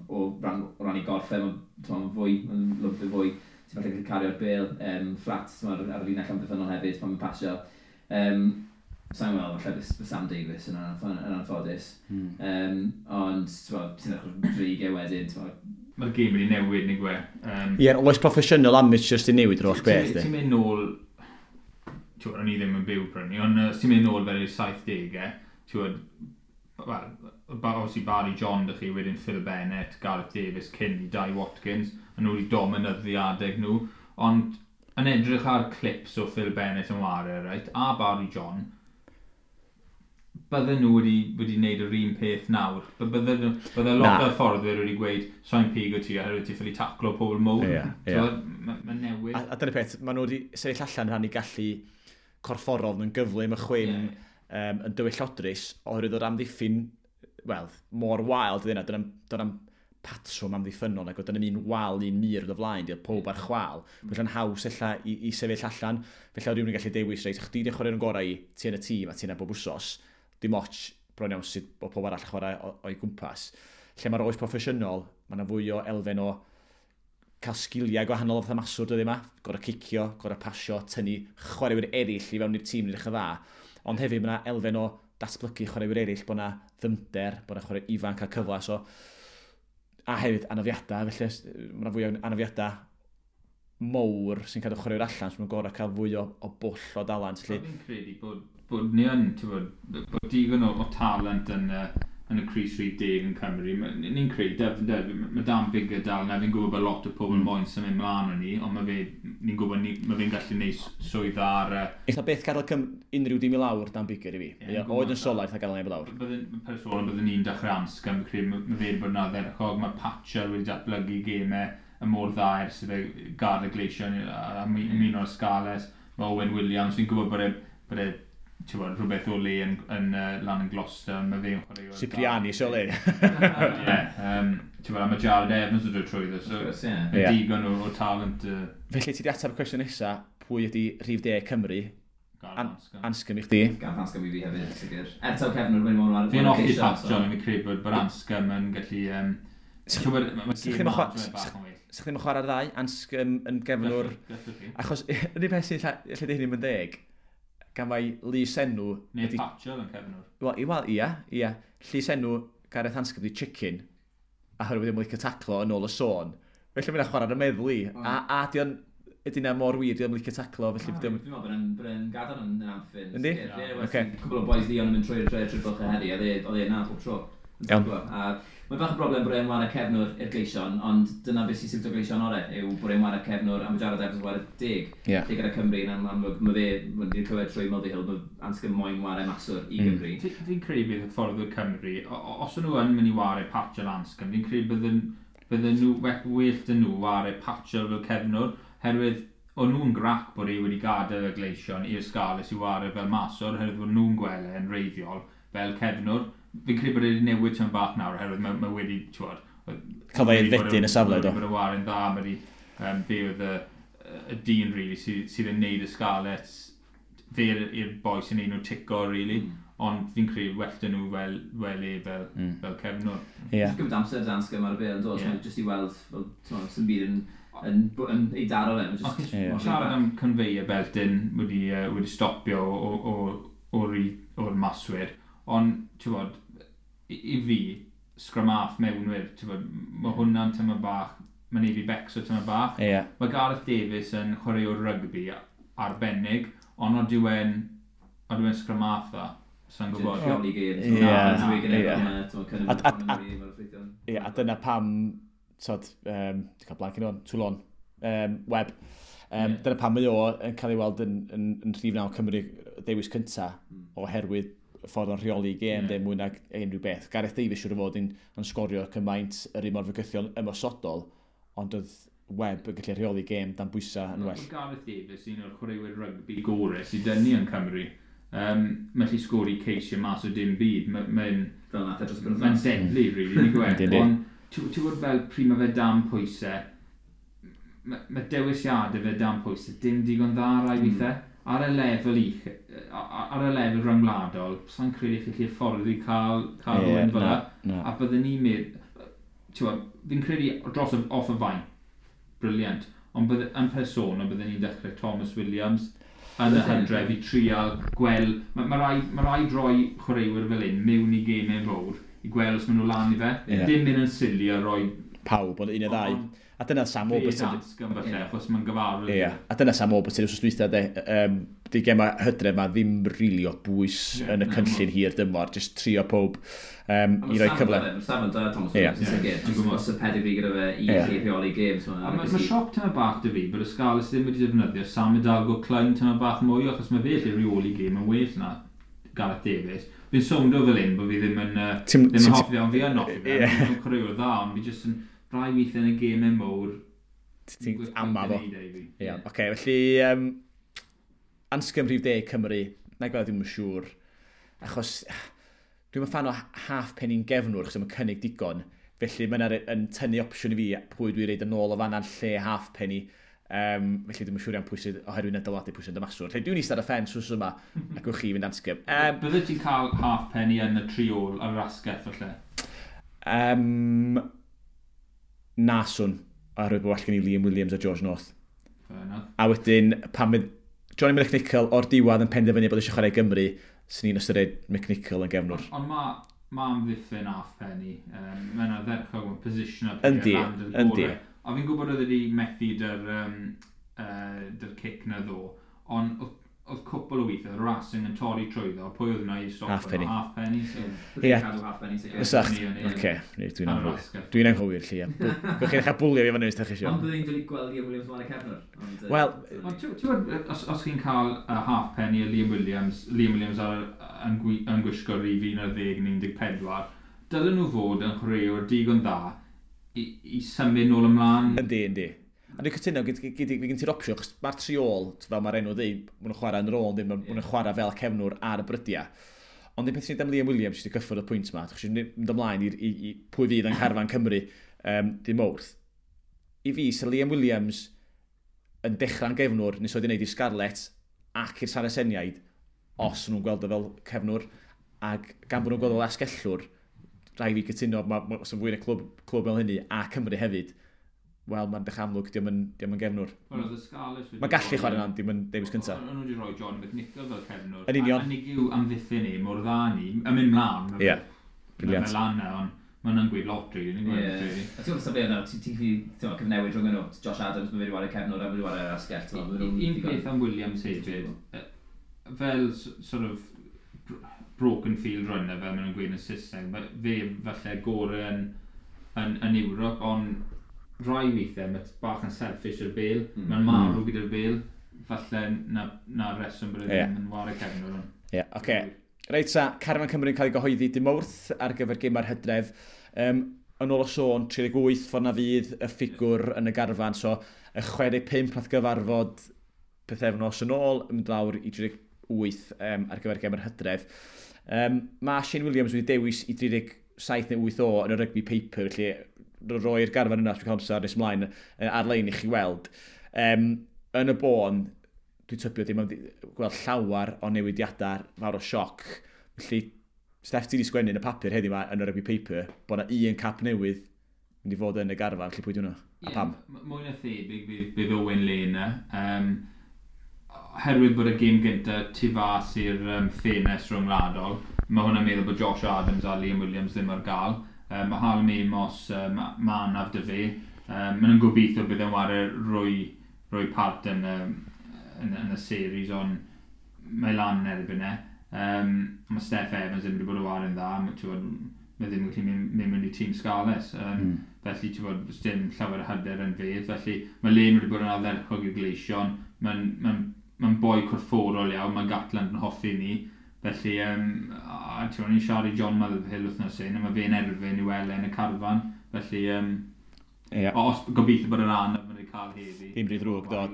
o ran i gorff e, mae'n fwy, mae'n lwmpio fwy, ti'n falle gallu cario'r bêl fflat ar y linell amddiffynnol hefyd pan mae'n pasio. Sa'n gweld, falle bydd Sam Davies yn anffodus. Ond, ti'n edrych dreigiau wedyn. Mae'r gêm wedi newid, neu gwe. Ie, oes proffesiynol amateur sy'n newid yr holl beth. Ti'n mynd nôl, o'n i ddim yn byw prynu, ond ti'n mynd nôl fel i'r 70au, ti'n wel, obviously Barry John dych chi, wedyn Phil Bennett, Gareth Davies, cyn i Dai Watkins, a nhw wedi dominyddu adeg nhw, ond yn edrych ar clips o Phil Bennett yn ware, right, a Barry John, bydden nhw wedi wneud yr un peth nawr. Bydde lot o'r fforddwyr wedi gweud, so'n pigo ti oherwydd ti ffili taclo pobl mowr. Yeah, yeah. Mae'n newid. A dyna'r peth, maen nhw wedi sefyll allan rhan i gallu corfforol yn gyflym, y chwim, yn dywyllodrus, oherwydd o'r amddiffyn, wel, mor wael dyna, dyna'n patrwm amddiffynnol, ac oedd dyna'n un wal, un mur o flaen, diolch pob ar chwal. Felly'n haws ella i sefyll allan, felly oedd rhywun yn gallu dewis, reit, chdi di'n chwarae'n gorau i, ti yn y tîm a ti yna bob wsos, dim ots bron iawn sydd bod pob arall chwarae o'i gwmpas. Lle mae'r oes proffesiynol, mae yna fwy o elfen o cael sgiliau gwahanol o fatha maswr dyddi yma, gorau cicio, gorau pasio, tynnu chwaraewyr eraill i fewn i'r tîm yn edrych yn dda. Ond hefyd mae yna elfen o datblygu chwaraewyr eraill, bod yna ddyfnder, bod yna chwarae ifanc a cyfle. So, a hefyd anafiadau, felly mae yna fwy o anafiadau mowr sy'n cadw chwaraewyr allan, so mae'n gorau cael fwy o bwll o dalent. Fi'n credu bod ni yn, ti'n bod digon o talent yn y crys rhif 10 yn Cymru. Ni'n credu, mae Dan Biggar dal na, fi'n gwybod bod lot o pobl moyn symud mlaen o ni, ond mae fe, ni'n gwybod mae fe'n gallu gwneud swydd ar... Eitha beth gadael unrhyw dim i lawr Dan Biggar i fi. Oed yn sola, eitha gadael neb i lawr. Personol, byddwn ni'n dechrau Anscombe, fi'n credu, mae fe'n bod yn ardderchog, mae Patchell wedi datblygu gemau y mor dda ers iddo gadael y Gleision a ymuno o'r Scarlets. Mae Owen Williams, fi'n gwybod bod e ti'n gwybod, rhywbeth o le yn lan yn Gloucester, mae fe'n chwarae. Cipriani, so le. Ie, ti'n gwybod, a mae Jared Evans yn dod trwyddo, so yeah. Digon o talent. Felly ti di ateb y cwestiwn nesa, pwy ydi rhif 10 Cymru? Anscombe i chdi. Gareth Anscombe i fi hefyd, sicr. Er taw cefnwr, mae'n mor... Fi'n hoffi Pat John, fi'n credu bod Anscombe yn gallu... Ti'n gwybod, mae gêm bach yn well. Sa'ch ddim yn chwarae'r ddau, Anscombe yn gefnwr... Achos, yr unig peth sy'n lle di hynny'n deg, gan mai lys enw... Neu Patchell yn cefnwr. Wel, ia. Llys enw Gareth Anscombe di Chicken, a oherwydd ddim yn licio taclo yn ôl y sôn. Felly mae'n chwarae ar y meddwl i. A di o'n... Ydy na mor wir, di o'n licio taclo, felly... Dwi'n meddwl bod e'n gadael yn amffyn. Yndi? Oce. Cwbl o boys Leon yn mynd trwy'r bylchau heddi, a oedd e na pob tro. Iawn. A mae'n bach o broblem bod e'n ware cefnwr i'r Gleision, ond dyna beth sy'n siwtio Gleision orau, yw bod e'n ware cefnwr a mae Jared Evans yn ware 10. Yeah. Lle gyda Cymru, yn amlwg, mae fe, wedi clywed trwy Mulvihill, mae Anscombe moyn ware maswr i Gymru. Fi'n credu bydd y ffordd o'r Cymru, os nhw yn mynd i ware Patchell Anscombe, fi'n credu bydden nhw, well dyn nhw ware Patchell fel cefnwr, herwydd o'n nhw'n grac bod e wedi gadael y Gleision i'r Scarlets i ware fel maswr, oherwydd bod nhw'n gweld e'n reiddiol fel cefnwr. Fi'n credu bod e wedi newid tyn bach nawr, oherwydd mae wedi, ti'n gwybod... Cael ei aeddfedu yn y safle, do. Bod y ware'n dda, mae wedi... Fe oedd y dyn, really, sydd yn neud y Scarlets, fe i'r boi sy'n neud nhw tico, really. Ond fi'n credu well dyn nhw fel e, fel cefnwr. Yeah. Gymryd amser Dan Anscombe ar y bêl yn dod, yeah. Jyst i weld, fel, sy'n byd yn ei daro fe. Just, siarad am conveyor belt yn wedi stopio o'r maswyr, ond, ti'n gwybod, i fi, scrum half mewnwyr, ti'n gwybod, mae hwnna'n tyma bach, mae'n neud fi becso tyma bach. Yeah. Mae Gareth Davies yn chwaraewr rygbi arbennig, ond odd yw e'n scrum half dda, sa'n gwybod. Rheoli gêm. Ie, a dyna pam, tod, dwi'n cael blank yn o'n, Toulon, Webb. Dyna pam mae o yn cael ei weld yn rhif 9 Cymru dewis cynta, oherwydd ffordd o'n rheoli gêm, yeah. Mwy nag unrhyw beth. Gareth Davies siŵr o fod yn sgorio cymaint yr un mor fygythiol ymosodol, ond oedd Webb yn gallu rheoli gêm dan bwysau yn well. Gareth Davies, un o'r chwaraewyr rygbi gorau sydd dynnu yn Cymru. Mae'n gallu sgori ceisio mas o dim byd. Mae'n deadly, really, ni'n gweld. Ond ti'n gwybod fel pryd mae fe dan pwysau, Ma dewisiadau fe dan pwysau dim digon dda rai weithiau. Ar y lefel uch, ar y lefel rhyngwladol, sa'n credu chi chi'r ffordd i cael rhywun fel 'na. A byddwn ni'n meddwl, fi'n credu dros off y fainc, brilliant, ond bydde, yn personol byddwn ni'n dechrau Thomas Williams yn y hydref i trial gweld, ma rhaid rhoi chwaraewyr fel un mewn i gemau fawr i gweld os maen nhw lan i fe. Dim mynd yn silly a rhoi pawb, ond un neu ddau. A dyna Sam Warburton. Fe falle, achos mae'n gyfarwydd. Ie, a dyna Sam Warburton wrth dwytha, de. Di gema hydref ma ddim rili o bwys yn y cynllun hir dymor, just trio pob i roi cyfle. Mae Sam yn da, Thomas Williams, yn sicr. Just os y pedigree gyda fe i rheoli games. Mae sioc tyma bach 'da fi bod y Scarlets ddim wedi defnyddio Sam Hidalgo Klein tyma bach mwy, achos mae fe lle rheoli game yn well na Gareth Davies. Fi'n sowndo fel un bod fi ddim yn hoffi fe, ond fi yn hoffi fe. Mae'n chwaraewr dda, ond fi jyst yn rai weithiau yn y gemau mowr. Ti'n ama fo. Ie, oce, felly Anscombe rhif 10 Cymru, na gweld ddim yn siŵr. Achos dwi'n fan o Halfpenny'n gefnwr, achos mae'n cynnig digon. Felly mae'n yn tynnu opsiwn i fi pwy dwi'n reid yn ôl o fanna'n lle Halfpenny. Felly dwi'n siŵr iawn pwy sydd oherwydd yn dylanwadu pwy sy'n dymaswr. Felly dwi'n eistedd ar y ffens wrth yma ac wch chi fynd Anscombe. Bydde ti'n cael Halfpenny yn y tri ôl ar yr asgell falle? Na swn, oherwydd bod well gen i Liam Williams a George North. A wedyn, pan mynd Johnny McNichol o'r diwedd yn penderfynu bod eisiau chwarae Gymru, sy'n ni'n ystyried McNichol yn gefnwr. Ond ma amddiffyn Halfpenny. Mae'n ardderchog, mae'n position up. Yndi. A fi'n gwybod oedd wedi methu dy'r cic na ddo, ond oedd cwpl o weithiau, Racing yn torri trwyddo, pwy oedd yna i stop Halfpenny. Halfpenny. So. Ie. Halfpenny. Ysach. Oce, dwi'n anghywir. Dwi'n anghywir, lle. Gwch chi'n cael bwlio fi fan hyn, os chi eisiau. Ond byddai'n dod i gweld Liam Williams mlaen y cefnwr. Wel. Ond ti'n gwybod, os chi'n cael Halfpenny a Liam Williams, Liam Williams yn gwisgo rhif 11 neu 14, dylen nhw fod yn chwaraewr digon dda i symud nôl ymlaen. Yndi. A dwi'n cytuno, fi gen ti'r opsiwn, achos mae'r tri ôl, fel mae'r enw dweud, maen nhw'n chwarae yn yr ôl, maen nhw'n chwarae fel cefnwr ar y brydiau. Ond un peth sy'n am Liam Williams sydd wedi cyffwrdd y pwynt yma, achos mynd ymlaen i pwy fydd yn carfan Cymru dim Mawrth. I fi, sy'n Liam Williams yn dechrau'n gefnwr, nes oedd wedi gwneud i'r Scarlets ac i'r Saraceniaid, os nhw'n gweld o fel cefnwr, ac gan bod nhw'n gweld o fel asgellwr, rhaid fi cytuno, os yn fwy yn y clwb fel hynny, a Cymru hefyd, wel, mae'n dechrau amlwg, diolch yn gefnwr. Wel, oedd y Scarlets Mae'n gallu chwarae yna, dim yn dewis cyntaf. O'n nhw wedi rhoi John McNichol fel cefnwr. Yn union. A nig yw amddiffyn ni, mor dda ni, yn mynd mlaen. Ie, brilliant. Mae lan na, ond mae'n yn gweud lot, really. Ie. A ti'n gwybod yna, ti'n gallu cyfnewid rhwng nhw. Josh Adams, mae wedi chwarae cefnwr a wedi chwarae asgell. Un peth am Williams hefyd, fel sort of broken field runner, fel maen nhw'n gweud yn Saesneg, fe falle gore yn Ewrop, ond rai weithiau mae bach yn selfish i'r bel, mae'n marw gyda'r bel, falle na reswm bod e ddim yn ware cefnwr. Ie, yeah, oce. Okay. Reit sa, Carfan Cymru'n cael ei gyhoeddi dim Mawrth ar gyfer gemau'r hydref. Yn ôl o sôn, 38 ffordd na fydd y ffigwr yn y garfan, so y 65 nath gyfarfod pethefnos yn ôl, yn mynd lawr i 38 ar gyfer gemau'r hydref. Mae Shane Williams wedi dewis i 37 neu 8 o yn y rugby paper, felly roi'r garfan yna, os dwi'n cael amser nes ymlaen ar-lein i chi weld. Yn y bôn, dwi'n tybio ddim yn gweld llawer o newidiadau fawr o sioc. Felly, Steff, ti wedi sgwennu yn y papur heddiw yma yn y rugby paper bod yna un cap newydd mynd i fod yn y garfan, felly pwy di hwnna? A pam? Mwy na thebyg bydd Owen Lane. Herwydd bod y gêm gyntaf tu fas i'r ffenest rhyngwladol, mae hwnna'n meddwl bod Josh Adams a Liam Williams ddim ar gael. Mae Hallam Amos, ma anaf 'da fe. Maen nhw'n gobeithio bydd e'n ware rwy part yn y series, ond mae lan yn erbyn e. Mae Steff Evans ddim wedi bod yn ware'n dda, mae ddim yn gallu mynd mewn i tîm Scarlets. Felly, ti'n bod, dim llawer o hyder yn fe. Felly, mae Lane wedi bod yn ardderchog i'r Gleision. Mae'n ma boi corfforol iawn, mae Gatland yn hoffi ni. Felly, a ti'n ni'n siarad i John Motherhill wythnos hyn, a mae fe'n erfyn i weld yn y carfan. Felly, yeah. Os gobeithio bod yr anaf mae'n ei cael heddi. Ddim rhy ddrwg, do.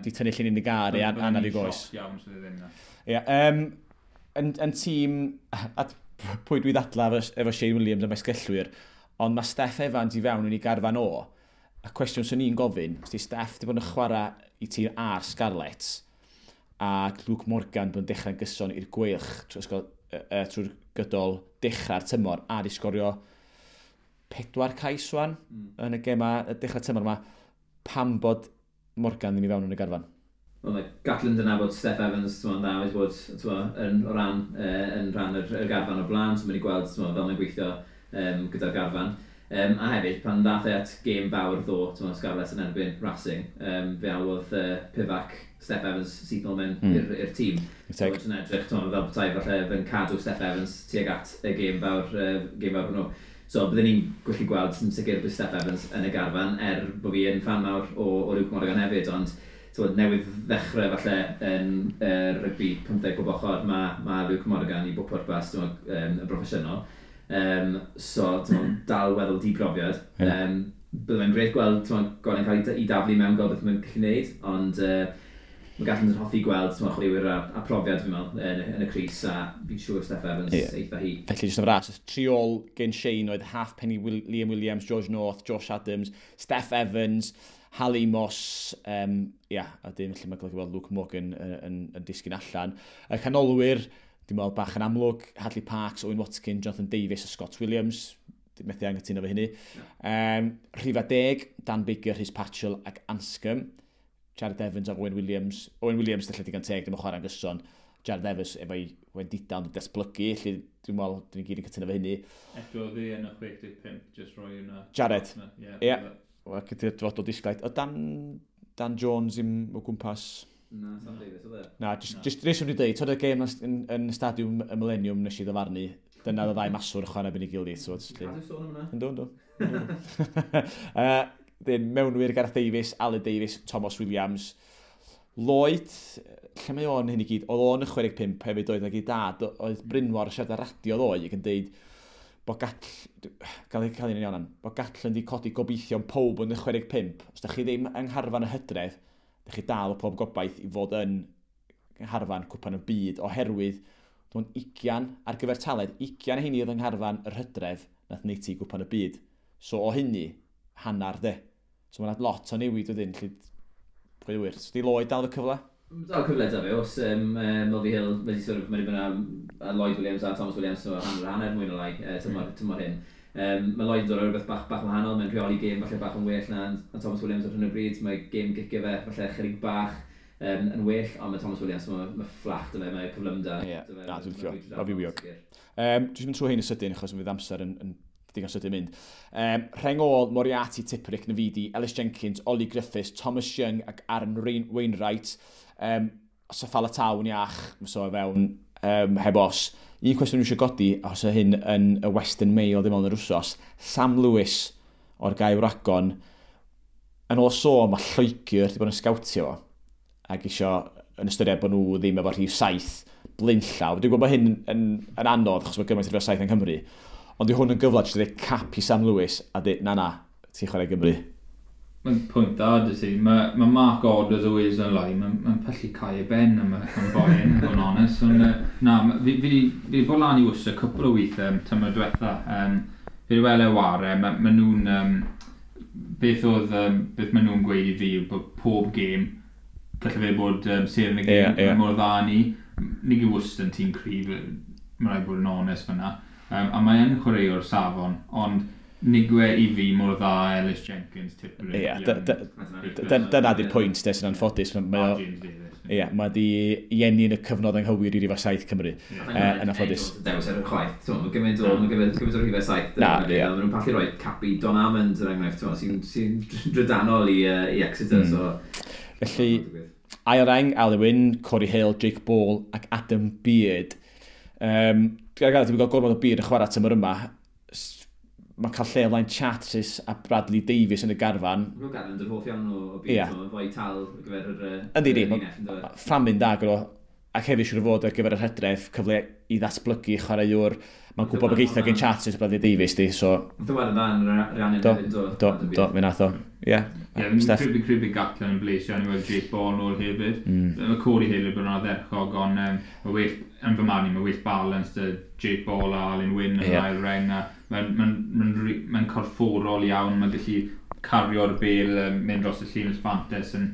Di tynnu llun i gar i anaf i goes. Iawn, sydd ddim na. Ie, yn tîm, a pwy dwi ddadla efo Shane Williams am esgellwyr, ond mae Steff Evans i fewn yn ei garfan o. A cwestiwn sy'n ni'n gofyn, os di Steff di bod yn chwarae i tîm a'r Scarlets, ac Luke Morgan bod yn dechrau'n gyson i'r Gweilch trwy'r gydol dechrau'r tymor, a di sgorio 4 cais wan yn y gema, y dechrau tymor yma, pam bod Morgan ddim i fewn yn y garfan? Wel, mae Gatland yn nabod Steff Evans, ti'n dda, wedi bod yn rhan yr garfan o blaen, so mae wedi gweld fel mae'n gweithio gyda'r garfan. A hefyd, pan ddath e at gêm fawr ddo, Scarlets yn erbyn Racing, fe alwodd Pivac Steff Evans syth nôl mewn i'r tîm. So, yn edrych, fel petai falle fe'n cadw Steff Evans tuag at y gêm fawr hwnnw. So, byddwn ni'n gallu gweld yn sicr bydd Steff Evans yn y garfan, er bod fi yn fan mawr o Luke Morgan hefyd, ond newydd ddechrau falle yn rygbi 15 bob ochr, mae Luke Morgan i bob pwrpas yn broffesiynol. So, dal weddol di-brofiad. Yeah. Bydde fe'n grêt gweld Gordon cael ei daflu mewn, gweld beth mae'n gallu gwneud, ond mae Gatland yn hoffi gweld chwaraewyr a profiad, fi'n meddwl, yn y crys, a fi'n siŵr Steff Evans eitha hi. Felly, jyst yn fras, triol gen Shane oedd Halfpenny, Liam Williams, George North, Josh Adams, Steff Evans, Hal Moss, a dim lle mae'n golygu weld Luke Morgan yn disgyn allan. Y canolwyr, dwi'n meddwl bach yn amlwg, Hadley Parks, Owen Watkin, Jonathan Davies a Scott Williams, methu anghytuno efo hynny. Rhifa 10, Dan Baker, Rhys Patchell ac Anscombe. Jared Evans ac Owen Williams. Owen Williams, lle digon teg, ddim yn chwarae'n gyson. Jared Evans efo'i wendida ond datblygu, lle dwi'n meddwl, dyn ni gyd yn cytuno efo hynny. Eto ddi yn y 65, just roi hwnna. Jared. Ie. Wel, gyda'r dyfodol disglaid. O Dan Jones i'm o gwmpas. Na, Sam Davies, oedd e? Na, just reswm i dweud, toedd y gêm yn Stadiwm y Millennium nes i ddyfarnu, dyna oedd y ddau maswr chwarae ben ei gilydd. Cadw sôn am hwnna? Yndw. Dyn, mewnwyr Gareth Davies, Aled Davies, Thomas Williams. Lloyd, lle mae o'n hyn i gyd? Oedd o'n y 65 hefyd oedd nag i dad, oedd Brynmor siarad ar radio ddoe ac yn deud bod gael un iawn, bod Gatland di codi gobeithion pob yn y 65. Os da chi ddim yng ngharfan y hydref, da chi dal pob gobaith i fod yn ngharfan cwpan y byd, oherwydd dwi'n 20 ar gyfer taled, 20 heini oedd yng ngharfan yr hydref nath neud ti cwpan y byd. So o hynny, hannar de. So mae'n lot o newid wedyn, lle pwy wir. So di Lloyd dal y cyfle? Dal cyfle da fe, os Mulvey Hill, mae wedi bod a Lloyd Williams a Thomas Williams, so hanner mwy na lai, tymor hyn. Mae Lloyd yn dod o rhywbeth bach wahanol, mae'n rheoli gêm falle bach yn well na Thomas Williams ar hyn o bryd, mae gêm gicio fe falle chydig bach yn well, ond mae Thomas Williams, mae fflach dy fe, mae cyflymda. Ie, na, dwi'n licio, mae fywiog. Dwi'n mynd trwy hyn yn sydyn, achos mae fydd amser yn digon sydyn mynd. Rheng ôl, Moriarty, Tipuric, Navidi, Ellis Jenkins, Ollie Griffiths, Thomas Young ac Aaron Wainwright. Safala Tawn iach, so fewn heb os. Un cwestiwn dwi eisiau godi, os y hyn yn y Western Mail ddim ond yr wsos, Sam Lewis o'r Gae Wragon, yn ôl sôn mae Lloegr wedi bod yn sgawtio fo, ac isio yn ystyried bod nhw ddim efo rhif 7 blaenllaw. Dwi'n gwybod bod hyn yn anodd, achos mae gymaint rhif 7 yng Nghymru, ond di hwn yn gyfle jyst i ddeud cap i Sam Lewis a dweud, na, ti'n chwarae Gymru. Mae'n pwynt da, dy ti. Mae Mark Orders o Wales Online, mae'n pyllu cael ei ben am boi yn, bod yn onest. Ond na, fi wedi bod lan i Worcester cwpl o weithiau tymor diwetha. Fi wedi weld e ware, ma nhw'n... Beth maen nhw'n gweud i fi yw bod pob gêm, gallai fe bod seren y gêm, yeah. Mor dda ni. Nid yw Worcester yn tîm cryf, mae'n rhaid bod yn onest fyna. A mae yn chwaraewr safon, ond nigwe i fi mor dda Ellis Jenkins, Tipuric. Ie, dyna di'r pwynt, de, sy'n anffodus. James Davies. Ie, mae di i enni yn y cyfnod anghywir i rhif 7 Cymru, yn anffodus. Dewis ar y chwaith, mae gymaint o rhifau 7. Na, ie. Maen nhw'n pallu rhoi Capi Don Amond, er enghraifft, sy'n drydanol i Exeter. Felly, ail reng, Alun Wyn, Corey Hill, Jake Ball ac Adam Beard. Dwi'n gael gormod o Beard yn chwarae tymor yma. Mae'n cael lle o flaen Charteris a Bradley Davies yn y garfan. Mae'n Gatland yn hoff iawn o Beard, mae'n fwy tal ar gyfer yr Yndi, fframyn da gyda, ac hefyd siŵr o fod ar gyfer yr hydref, cyfle i ddatblygu chwaraewr. Mae'n gwybod bod geitha gen Charteris a Bradley Davies, di, so... Nath o weld yn dda yn Rhiannon hefyd, do. Do, fe nath o. Ie. Ie, fi'n credu Gatland yn blesio, ni weld Jake Ball nôl hefyd. Mae Corey Hill yn bod yn ardderchog, ond mae well, yn fy marn i, mae well balance dy Jake Ball a Alun Wyn yn ail reng, a mae'n corfforol iawn, mae'n gallu cario'r bel, mynd dros y llinell fantes yn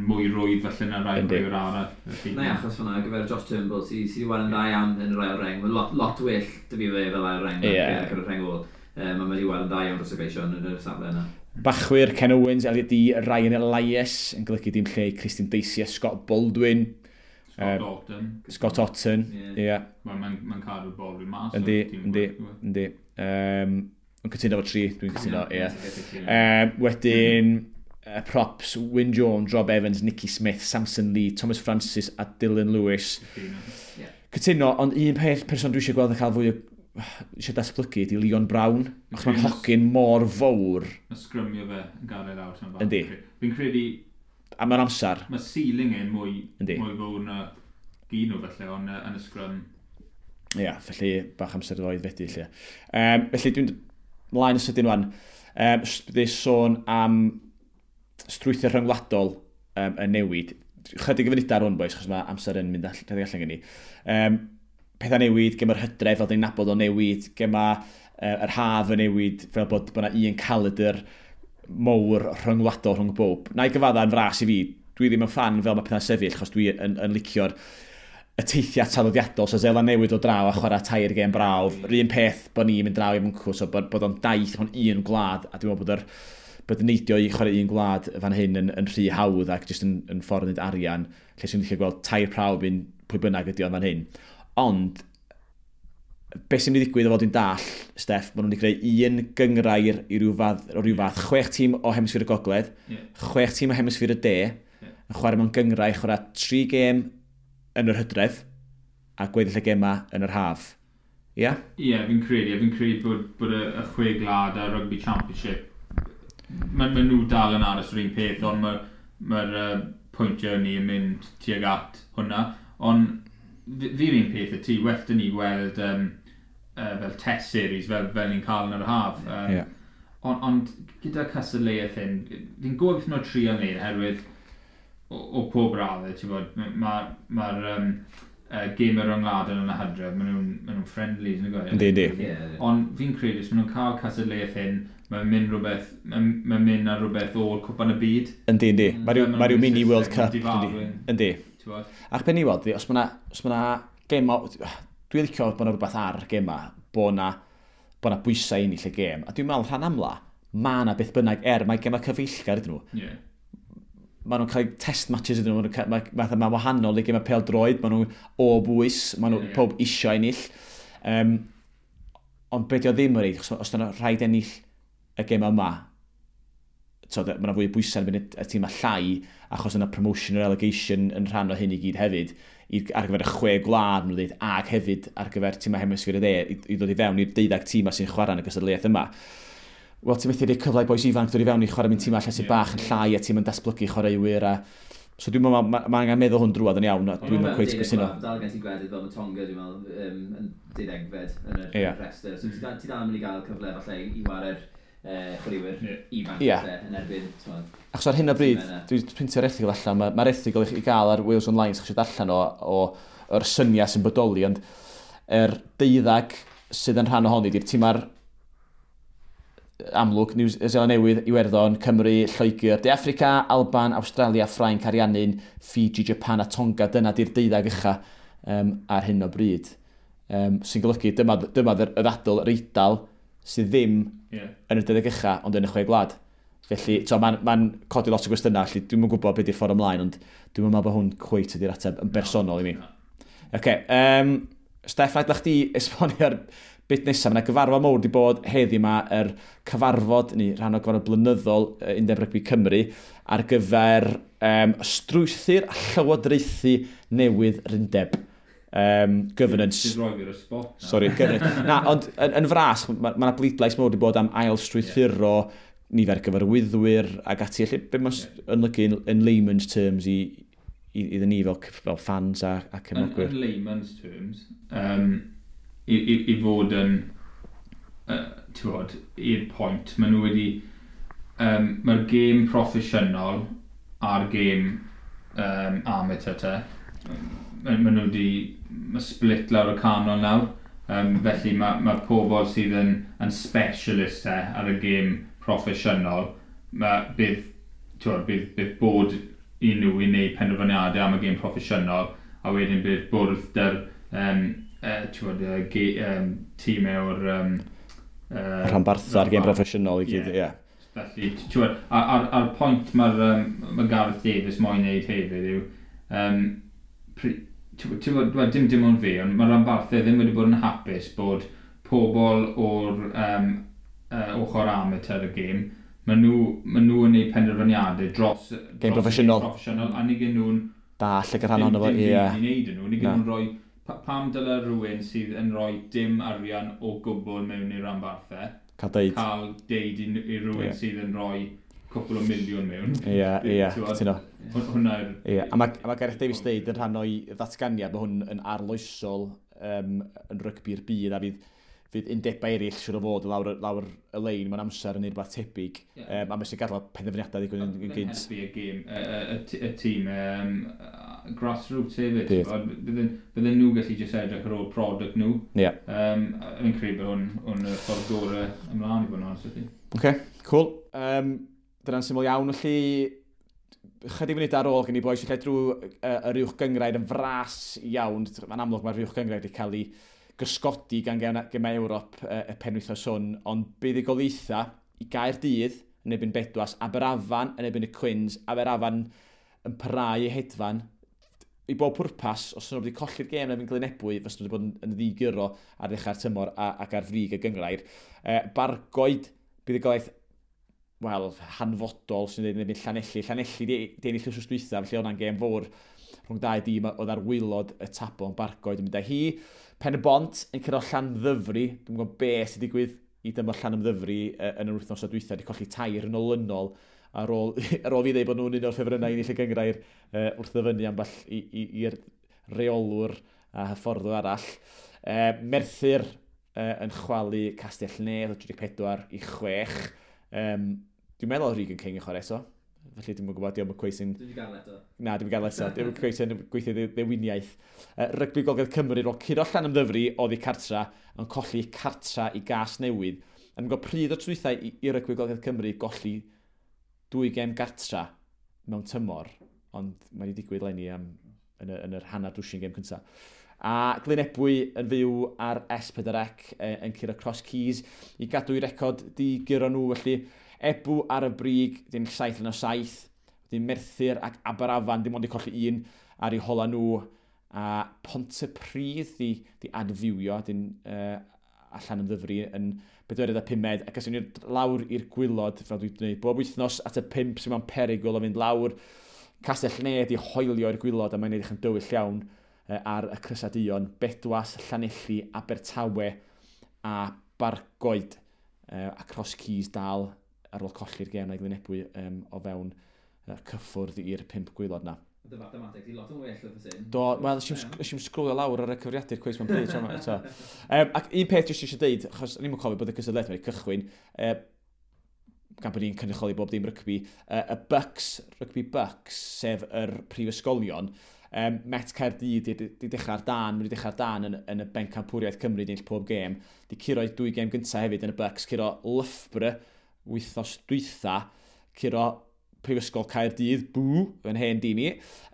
mwy rwydd falle na rai chwaraewyr arall. Na, achos hwnna, ar gyfer Josh Turnbull, sydd wedi weld yn dda iawn yn yr ail reng. Mae'n lot well dy fi fe fel ail reng ar gyfer y reng ôl. Mae wedi weld yn dda iawn dros y Gleision yn y safle yna. Bachwyr, Ken Owens, Elliot Dee, Ryan Elias, yn golygu dim lle Christian Dacey a Scott Baldwin. Scott Otten. Scott Otten, ie. Yeah. Mae'n cadw'r Baldwin mas. Yndi. Yn cytuno fo tri, dwi'n cytuno, ie. Wedyn, props, Wyn Jones, Rob Evans, Nicky Smith, Samson Lee, Thomas Francis a Dylan Lewis. Yeah. Cytuno, ond un peth person dwi eisiau gweld yn cael fwy o eisiau datblygu ydy Leon Brown, achos mae'n hogyn mor fawr. Mae sgrymio fe yn gadael lawr. Yndi. Fi'n credu... A mae'n amser. Mae ceiling e'n mwy fawr na gyn nhw felly, ond yn y sgrym. Ia, yeah, felly bach amser iddo fedi lle. Felly dwi'n mlaen y sydyn wan. Byddu sôn am strwythur rhyngwladol yn newid. Chydig o funudau ar hwn, boys, achos mae amser yn mynd allan gen i. Pethau newid, gema'r hydref fel dyn ni'n nabod o newid, gema yr haf yn newid, fel bod yna un calendar mowr rhyngwladol rhwng bob. Na i gyfadda yn fras i fi, dwi ddim yn ffan fel mae pethau'n sefyll, achos dwi yn licio'r y teithiau traddodiadol, so Seland Newydd o draw a chwarae 3 gêm brawf. Yr un peth bod ni'n mynd draw i Mwncw, so bod o'n daith mewn un gwlad, a dwi'n meddwl bod yn neidio i chwarae un gwlad fan hyn yn rhy hawdd ac jyst yn ffordd yn neud arian, lle sy'n licio gweld 3 prawf un pwy bynnag ydi o'n fan hyn. Ond, beth sy'n mynd i ddigwydd o fod yn dall, Steff, maen nhw'n wedi creu un gynghrair i ryw fath, 6 tîm o hemisffer y gogledd, 6 tîm o hemisffer y de, yn chwarae mewn gynghrair, chwarae 3 gêm yn yr hydref, a gweddill y gema yn yr haf. Ie? Yeah? Ie, yeah, fi'n credu. Fi'n credu bod y 6 gwlad a Rugby Championship, mae nhw dal yn aros yr un peth, ond mae'r pwyntiau ni yn mynd tuag at hwnna. Ond fi'r un peth y ti, well dyn ni weld fel test series fel ni'n cael yn yr haf. Yeah. Ond gyda cystadleuaeth hyn, fi'n gwybod beth nhw'n trio wneud oherwydd o pob raddau, ti'n bod, mae'r gêm rhyngwladol yn y hydref, maen nhw'n friendlies, yn y Yndi. Ond fi'n credu, os maen nhw'n cael cystadleuaeth hyn, mae'n mynd ar rhywbeth o'r cwpan y byd. Yndi. Mae rhyw mini World Cup. Yndi. Ac ben i weld, os mae yna gema, dwi'n licio bod yna rhywbeth ar gema, bod yna bwysau ennill y gêm. A dwi'n meddwl rhan amla, mae yna beth bynnag, mae gema cyfeillgar ydyn nhw. Yeah. Maen nhw'n cael test matches ydyn nhw, mae wahanol i gema pêl-droed, maen nhw'n o bwys, maen nhw pob isio ennill. Ond be' 'di o ddim yn reid, os yna rhaid ennill y gema yma, mae yna fwy o bwysau yn mynd y tîm llai, achos yna promotion or relegation yn rhan o hyn i gyd hefyd, ar gyfer y 6 gwlad, maen nhw'n dweud, ac hefyd ar gyfer tîmau hemisffer y dde, i ddod i fewn i'r 12 tîmau sy'n chwarae yn y gystadleuaeth yma. Wel, ti'n methu rhoi cyfle i bois ifanc dod i fewn i chwarae mewn tîmau lle sy'n bach yn llai a ti'n mynd datblygu chwaraewyr. So dwi'n meddwl, mae angen meddwl hwn drwad yn iawn, a dwi'n meddwl cweit gysyno. Dal gen ti gwledydd fel mae Tonga, dwi'n meddwl, yn 12fed yn y rhestr. So ti dal yn mynd i gael cyfle falle i ware'r chwaraewyr ifanc yn erbyn. Achos ar hyn o bryd, dwi'n printio'r erthygl allan, mae'r erthygl i gael ar Wales Online, sy'ch eisiau darllen o'r syniad sy'n bodoli, ond yr 12 sydd yn rhan ohoni, di'r tîmau'r amlwg, New Zealand Newydd, Iwerddon, Cymru, Lloegr, De Affrica, Alban, Awstralia, Ffrainc, Ariannin, Fiji, Japan a Tonga. Dyna di'r 12 ucha ar hyn o bryd. Sy'n golygu, dyma y ddadl, yr Eidal, sydd ddim yn y 12 ucha, ond yn y 6 gwlad. Felly, mae'n codi lot o gwestiynau, felly dwi'm yn gwybod beth yw'r ffordd ymlaen, ond dwi'm yn meddwl bod hwn cweit ydy'r ateb yn bersonol i mi. Okay, Steff, na i chdi esbonio'r bit nesaf. Mae yna gyfarfod mawr wedi bod heddi yma, yr cyfarfod, neu rhan o gyfarfod blynyddol Undeb Rygbi Cymru, ar gyfer strwythur a llywodraethu newydd yr undeb. Governance. Ti'n rhoi fi ar y spot. Sorry, governance. Na, ond yn fras, mae yna bleidlais mawr wedi bod am ail strwythuro nifer gyfarwyddwyr ac ati. Felly, be mae'n yn lygu in layman's terms i iddyn ni fel fans a cefnogwyr? In layman's terms, i fod yn, ti'n bod, i'r pwynt, maen nhw wedi, mae'r gêm proffesiynol a'r gêm amateur te, maen nhw wedi, mae split lawr y canol nawr, felly mae pobl sydd yn specialist te ar y gêm proffesiynol, bydd bod i nhw i wneud penderfyniadau am y gêm proffesiynol, a wedyn bydd bwrdd dy'r tîmau o'r rhanbarthau a'r gêm proffesiynol i gyd, ie. Felly, a'r pwynt mae'r ma Gareth Davies moyn wneud hefyd yw, dim ond fi, ond mae'r rhanbarthau ddim wedi bod yn hapus bod pobl o'r ochr amateur y gêm, maen nhw yn gwneud penderfyniadau dros gêm proffesiynol, a nid gen nhw'n dall y rhan ohono fo, ie. Dim byd i wneud nhw, nid gen nhw'n rhoi. Pam dyle rhywun sydd yn rhoi dim arian o gwbl mewn i'r rhanbarthau cael deud i rhywun sydd yn rhoi cwpl o miliwn mewn. Ie, ie, cytuno. Hwnna yw'r. Ie, a mae Gareth Davies deud yn rhan o'i ddatganiad, mae hwn yn arloesol yn rygbi'r byd, a fydd undebau eraill siwr o fod lawr y lein mewn amser yn rhywbeth tebyg. Yeah. A mae sy'n gadael penderfyniadau ddigwydd yn gynt. Helpu y gêm, y tîm grassroots hefyd. Bydden nhw gallu jyst edrych ar ôl product nhw. Yeah. Fi'n credu bod hwn y ffordd gorau ymlaen i fod yn honest. OK, cool. Dyna'n syml iawn, felly chydig funud ar ôl gen i bois, lle drwy yr uwch gynghrair yn fras iawn. Mae'n amlwg mae'r uwch gynghrair wedi cael ei gysgodi gan gemau Ewrop y penwythnos hwn, ond buddugoliaethau i Gaerdydd yn erbyn Bedwas, Aberafan yn erbyn y Cwins, Aberafan yn parhau i hedfan. I bob pwrpas, os nhw wedi colli'r gêm yn erbyn Glynebwy, fysa nhw wedi bod yn ddiguro ar ddechrau'r tymor ac ar frig y gynghrair. Bargoed, buddugoliaeth, wel, hanfodol sy'n dweud yn erbyn Llanelli. Llanelli di ennill wythnos dwytha, felly o'na'n gêm fawr rhwng dau dîm oedd ar waelod y tabl, yn Bargoed yn mynd â hi. Pen y Bont yn curo Llanymddyfri. Dwi'n gwybod beth sy'n digwydd i dyma Llanymddyfri yn yr wythnos o dwytha. Wedi colli 3 yn olynol ar ôl fi ddeud bod nhw'n un o'r ffefrynnau i ennill y gynghrair wrth ddyfynnu ambell i'r reolwr a hyfforddwr arall. Merthyr yn chwalu Castell Nedd o 34-6. Dwi'n meddwl oedd Regan King yn chwarae eto. Felly dwi'n gwybod, diolch yn cweith sy'n. Dwi'n gael eto. Na, dwi'n gael eto. Dwi'n cweith sy'n gweithio ddewiniaeth. Rygbi Gogledd Cymru, roedd curo Llanymddyfri oddi cartra, yn colli cartra i Gas Newydd. Yn gwybod pryd o trwythau i Rygbi Gogledd Cymru golli 2 gêm gartra mewn tymor, ond mae wedi digwydd leni am, yn yr hanner dwsin gêm cyntaf. A Glynebwy yn fyw ar S4C yn curo Cross Keys i gadw i record di guro nhw, felly Ebw ar y brig, dyn 7 yn o 7, dyn Merthyr ac Aberafan, dim ond i colli un ar eu hola nhw, a Pontypridd di adfywio, dyn allan yn ddyfru yn 4 a 5, ac as ni'n lawr i'r gwylod, fel dwi'n gwneud bob wythnos at y 5 sy'n mewn perygl o fynd lawr. Castell Nedd i hoelio i'r gwylod, a mae'n edrych yn dywyll iawn ar y Crysaduon, Bedwas, Llanelli, Abertawe a Bargoed, a Cross Keys dal ar ôl colli'r gêm na i Glynebwy o fewn cyffwrdd i'r 5 gwaelod na. Dy mathemateg di lot yn well oedd y Do, wel, nes i'm sgrolio lawr ar y cyfrifiadur cweith mewn pryd. Eto. Ac un peth jyst eisiau deud, achos o'n i'm yn cofio bod y cystadleuaeth wedi cychwyn, gan bod ni'n cynrychioli bob dim rygbi, y Bucks, Rygbi Bucks, sef yr prifysgolion, Met Caerdydd di dechrau'r dan, wedi dechrau'r dan yn y bencampwriaeth Cymru di ennill pob gêm, di curo 2 gêm gyntaf hefyd yn y Bucks, curo Loughborough wythnos dwytha, curo Prifysgol Caerdydd, bw, yn hen dîm i,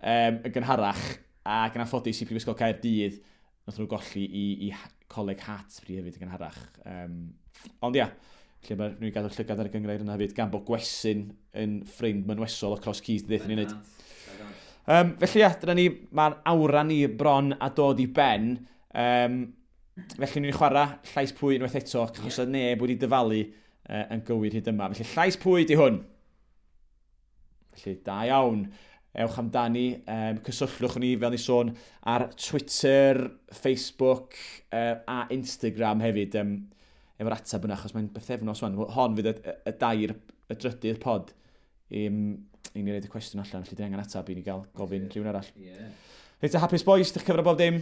yn gynharach, ac yn anffodus i Prifysgol Caerdydd, nath nhw golli i Coleg Hartpury hefyd yn gynharach. Ond ia, lle mae nhw'n gadw llygad ar y gynghrair yna hefyd, gan bod Gwesyn yn ffrind mynwesol o Cross Keys, ddeithon ni'n neud. Felly ia, dyna ni, mae'r awra ni bron a dod i ben. Felly ni'n chwarae llais pwy unwaith eto, achos oedd neb wedi dyfalu yn gywir hyd yma. Felly llais pwy di hwn? Felly da iawn. Ewch amdani, cysylltwch ni fel ni sôn ar Twitter, Facebook a Instagram hefyd efo'r ateb yna, achos mae'n bythefnos wan. Hon fydd y dair, y drydydd pod i ni roed y cwestiwn allan, felly dwi angen ateb i ni gael gofyn rhywun arall. Yeah. Reit, hapus boys, dych cyfro bob dim?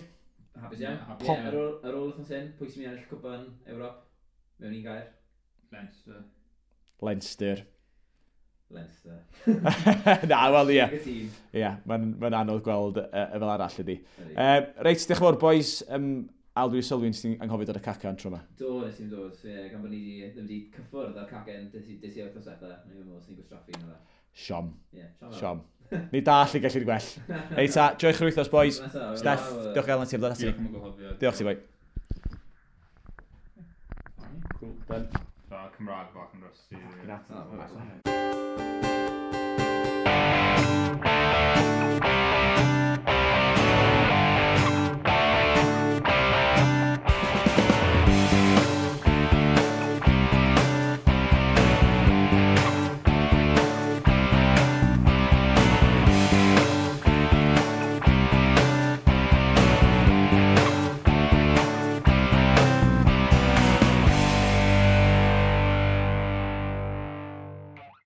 Hapus iawn. Yeah, ar ôl wythnos hyn, pwy sy'n mynd i ennill cwpan Ewrop? Mewn un gair? Leinster. Leinster. Leinster. Na, wel, ie. Ie, mae'n anodd gweld y fel arall ydi. Reit, diolch yn fawr, boys, Al, dwi sylwi nes ti'n anghofio dod y cacan tro yma. Do, nes i'n dod, ie, gan bod ni di, ddim wedi cyffwrdd â'r cacen des i wythnos diwetha. Ni'n meddwl sy'n gwastraffu yna. Siom. Ie, siom. Siom. Ni dall i gallu'r gwell. Ei ta, joiwch yr wythnos, boys. Steff, diolch gael na ti am ddod ati. Diolch am y gwahoddiad. Diolch ti, boi. Cool, done. So, Cymraeg bach yn rusty. Fucking Oh,